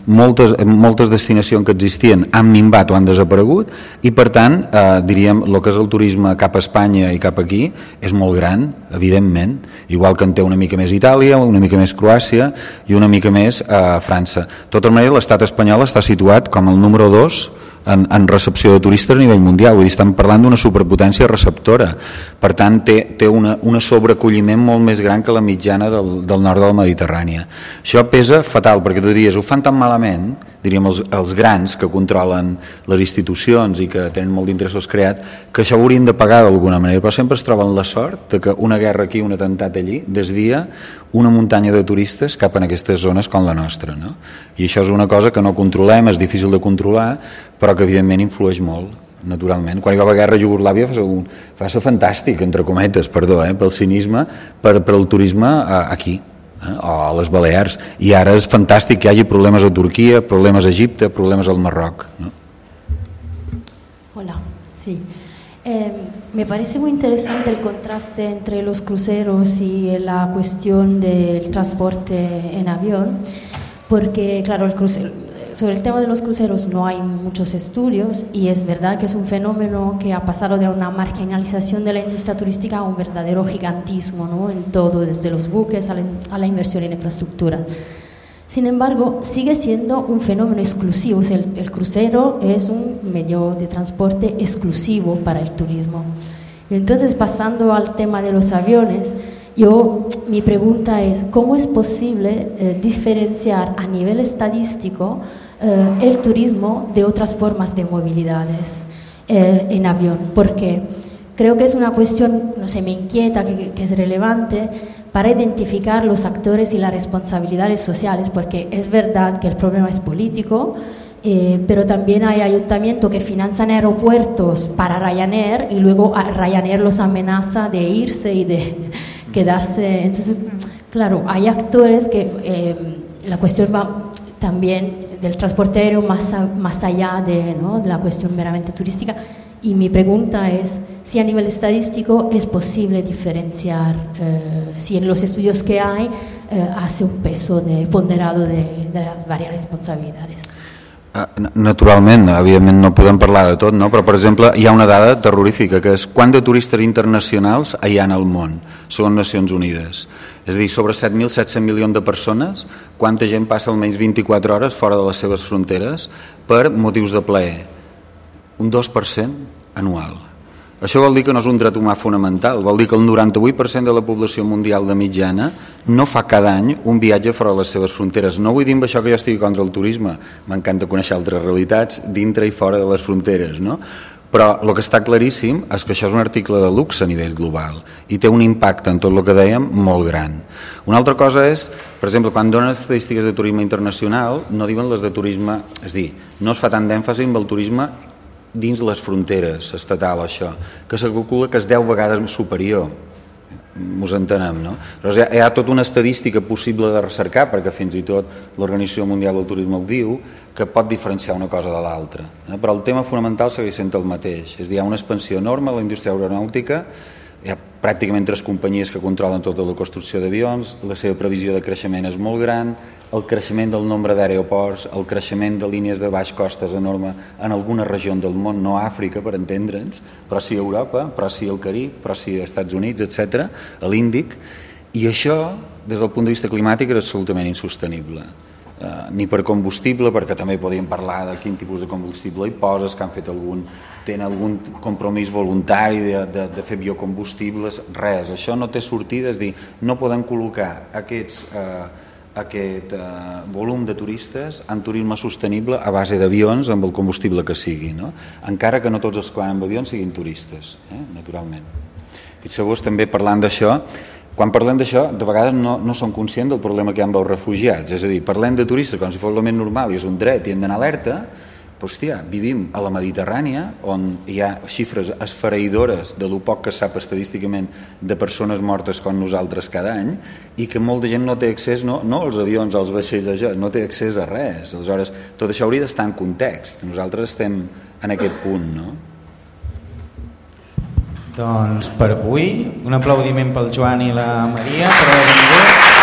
moltes destinacions que existien han minvat o han desaparegut, i per tant diríem el que és el turisme cap a Espanya i cap aquí és molt gran, evidentment, igual que en té una mica més Itàlia, una mica més Croàcia i una mica més França. De tota manera, l'estat espanyol està situat com el número 2 en recepció de turistes a nivell mundial, vull dir, estem parlant d'una superpotència receptora, per tant té una sobreacolliment molt més gran que la mitjana del nord del Mediterrani. Això pesa fatal, perquè tu diries, ho fan tan malament, diríem els grans que controlen les institucions i que tenen molt d'interessos creats, que això ho haurien de pagar d'alguna manera, però sempre es troben la sort de que una guerra aquí, un atemptat allí, desvia una muntanya de turistes cap en aquestes zones com la nostra, no? I això és una cosa que no controlem, és difícil de controlar, però que evidentment influeix molt, naturalment. Quan hi va haver guerra a Iugoslàvia va ser fantàstic, entre cometes, perdó, pel cinisme, per el turisme aquí, o a les Balears, i ara és fantàstic que hi hagi problemes a Turquia, problemes a Egipte, problemes al Marroc, no? Hola, sí. Me parece muy interesante el contraste entre los cruceros y la cuestión del transporte en avión, porque claro, sobre el tema de los cruceros no hay muchos estudios y es verdad que es un fenómeno que ha pasado de una marginalización de la industria turística a un verdadero gigantismo, ¿no? En todo, desde los buques a la inversión en infraestructura. Sin embargo, sigue siendo un fenómeno exclusivo, o sea, el crucero es un medio de transporte exclusivo para el turismo. Entonces, pasando al tema de los aviones, mi pregunta es, ¿cómo es posible diferenciar a nivel estadístico el turismo de otras formas de movilidades en avión? Porque creo que es una cuestión, no sé, me inquieta, que es relevante para identificar los actores y las responsabilidades sociales, porque es verdad que el problema es político, pero también hay ayuntamientos que financian aeropuertos para Ryanair y luego Ryanair los amenaza de irse y de quedarse. Entonces, claro, hay actores que la cuestión va también del transporte aéreo más allá de la cuestión meramente turística. Y mi pregunta es si a nivel estadístico es posible diferenciar, si en los estudios que hay hace un peso ponderado de las varias responsabilidades. Naturalment, evidentment no podem parlar de tot, no? Però per exemple hi ha una dada terrorífica que és quant de turistes internacionals hi ha al món, segons Nacions Unides. És a dir, sobre 7.700 milions de persones, quanta gent passa almenys 24 hores fora de les seves fronteres per motius de plaer? Un 2% anual. Això vol dir que no és un dret humà fonamental, vol dir que el 98% de la població mundial de mitjana no fa cada any un viatge fora de les seves fronteres. No vull dir amb això que jo estigui contra el turisme, m'encanta conèixer altres realitats dintre i fora de les fronteres, no? Però el que està claríssim és que això és un article de luxe a nivell global i té un impacte en tot el que dèiem molt gran. Una altra cosa és, per exemple, quan donen estadístiques de turisme internacional no diuen les de turisme, és a dir, no es fa tant d'èmfasi amb el turisme dins les fronteres estatal, això, que se calcula que és 10 vegades superior. Mos entenem, no? Però hi ha tota una estadística possible de recercar, perquè fins i tot l'Organització Mundial del Turisme ho diu, que pot diferenciar una cosa de l'altra. Però el tema fonamental segueix sent el mateix. És a dir, hi ha una expansió enorme a la indústria aeronàutica, hi ha pràcticament 3 companyies que controlen tota la construcció d'avions, la seva previsió de creixement és molt gran, el creixement del nombre d'aeroports, el creixement de línies de baix cost és enorme en algunes regions del món, no a Àfrica, per entendre'ns, però sí a Europa, però sí al Carib, però sí als Estats Units, etc., a l'Índic, i això, des del punt de vista climàtic, és absolutament insostenible. Ni per combustible, perquè també podíem parlar de quin tipus de combustible hi poses, que han fet tenen algun compromís voluntari de fer biocombustibles, res, això no té sortida, és dir, no podem col·locar aquest volum de turistes en turisme sostenible a base d'avions amb el combustible que sigui, no? Encara que no tots els que van amb avions siguin turistes, naturalment. Fixeu-vos també parlant d'això, quan parlem d'això, de vegades no som conscients del problema que hi ha amb els refugiats, és a dir, parlem de turistes com si fos el més normal i és un dret i hem d'anar alerta, però hòstia, vivim a la Mediterrània on hi ha xifres esfereïdores de lo poc que es sap estadísticament de persones mortes com nosaltres cada any i que molta gent no té accés, no als avions, als vaixells, no té accés a res. Aleshores, tot això hauria d'estar en context. Nosaltres estem en aquest punt, no? Doncs per avui, un aplaudiment pel Joan i la Maria per haver vingut.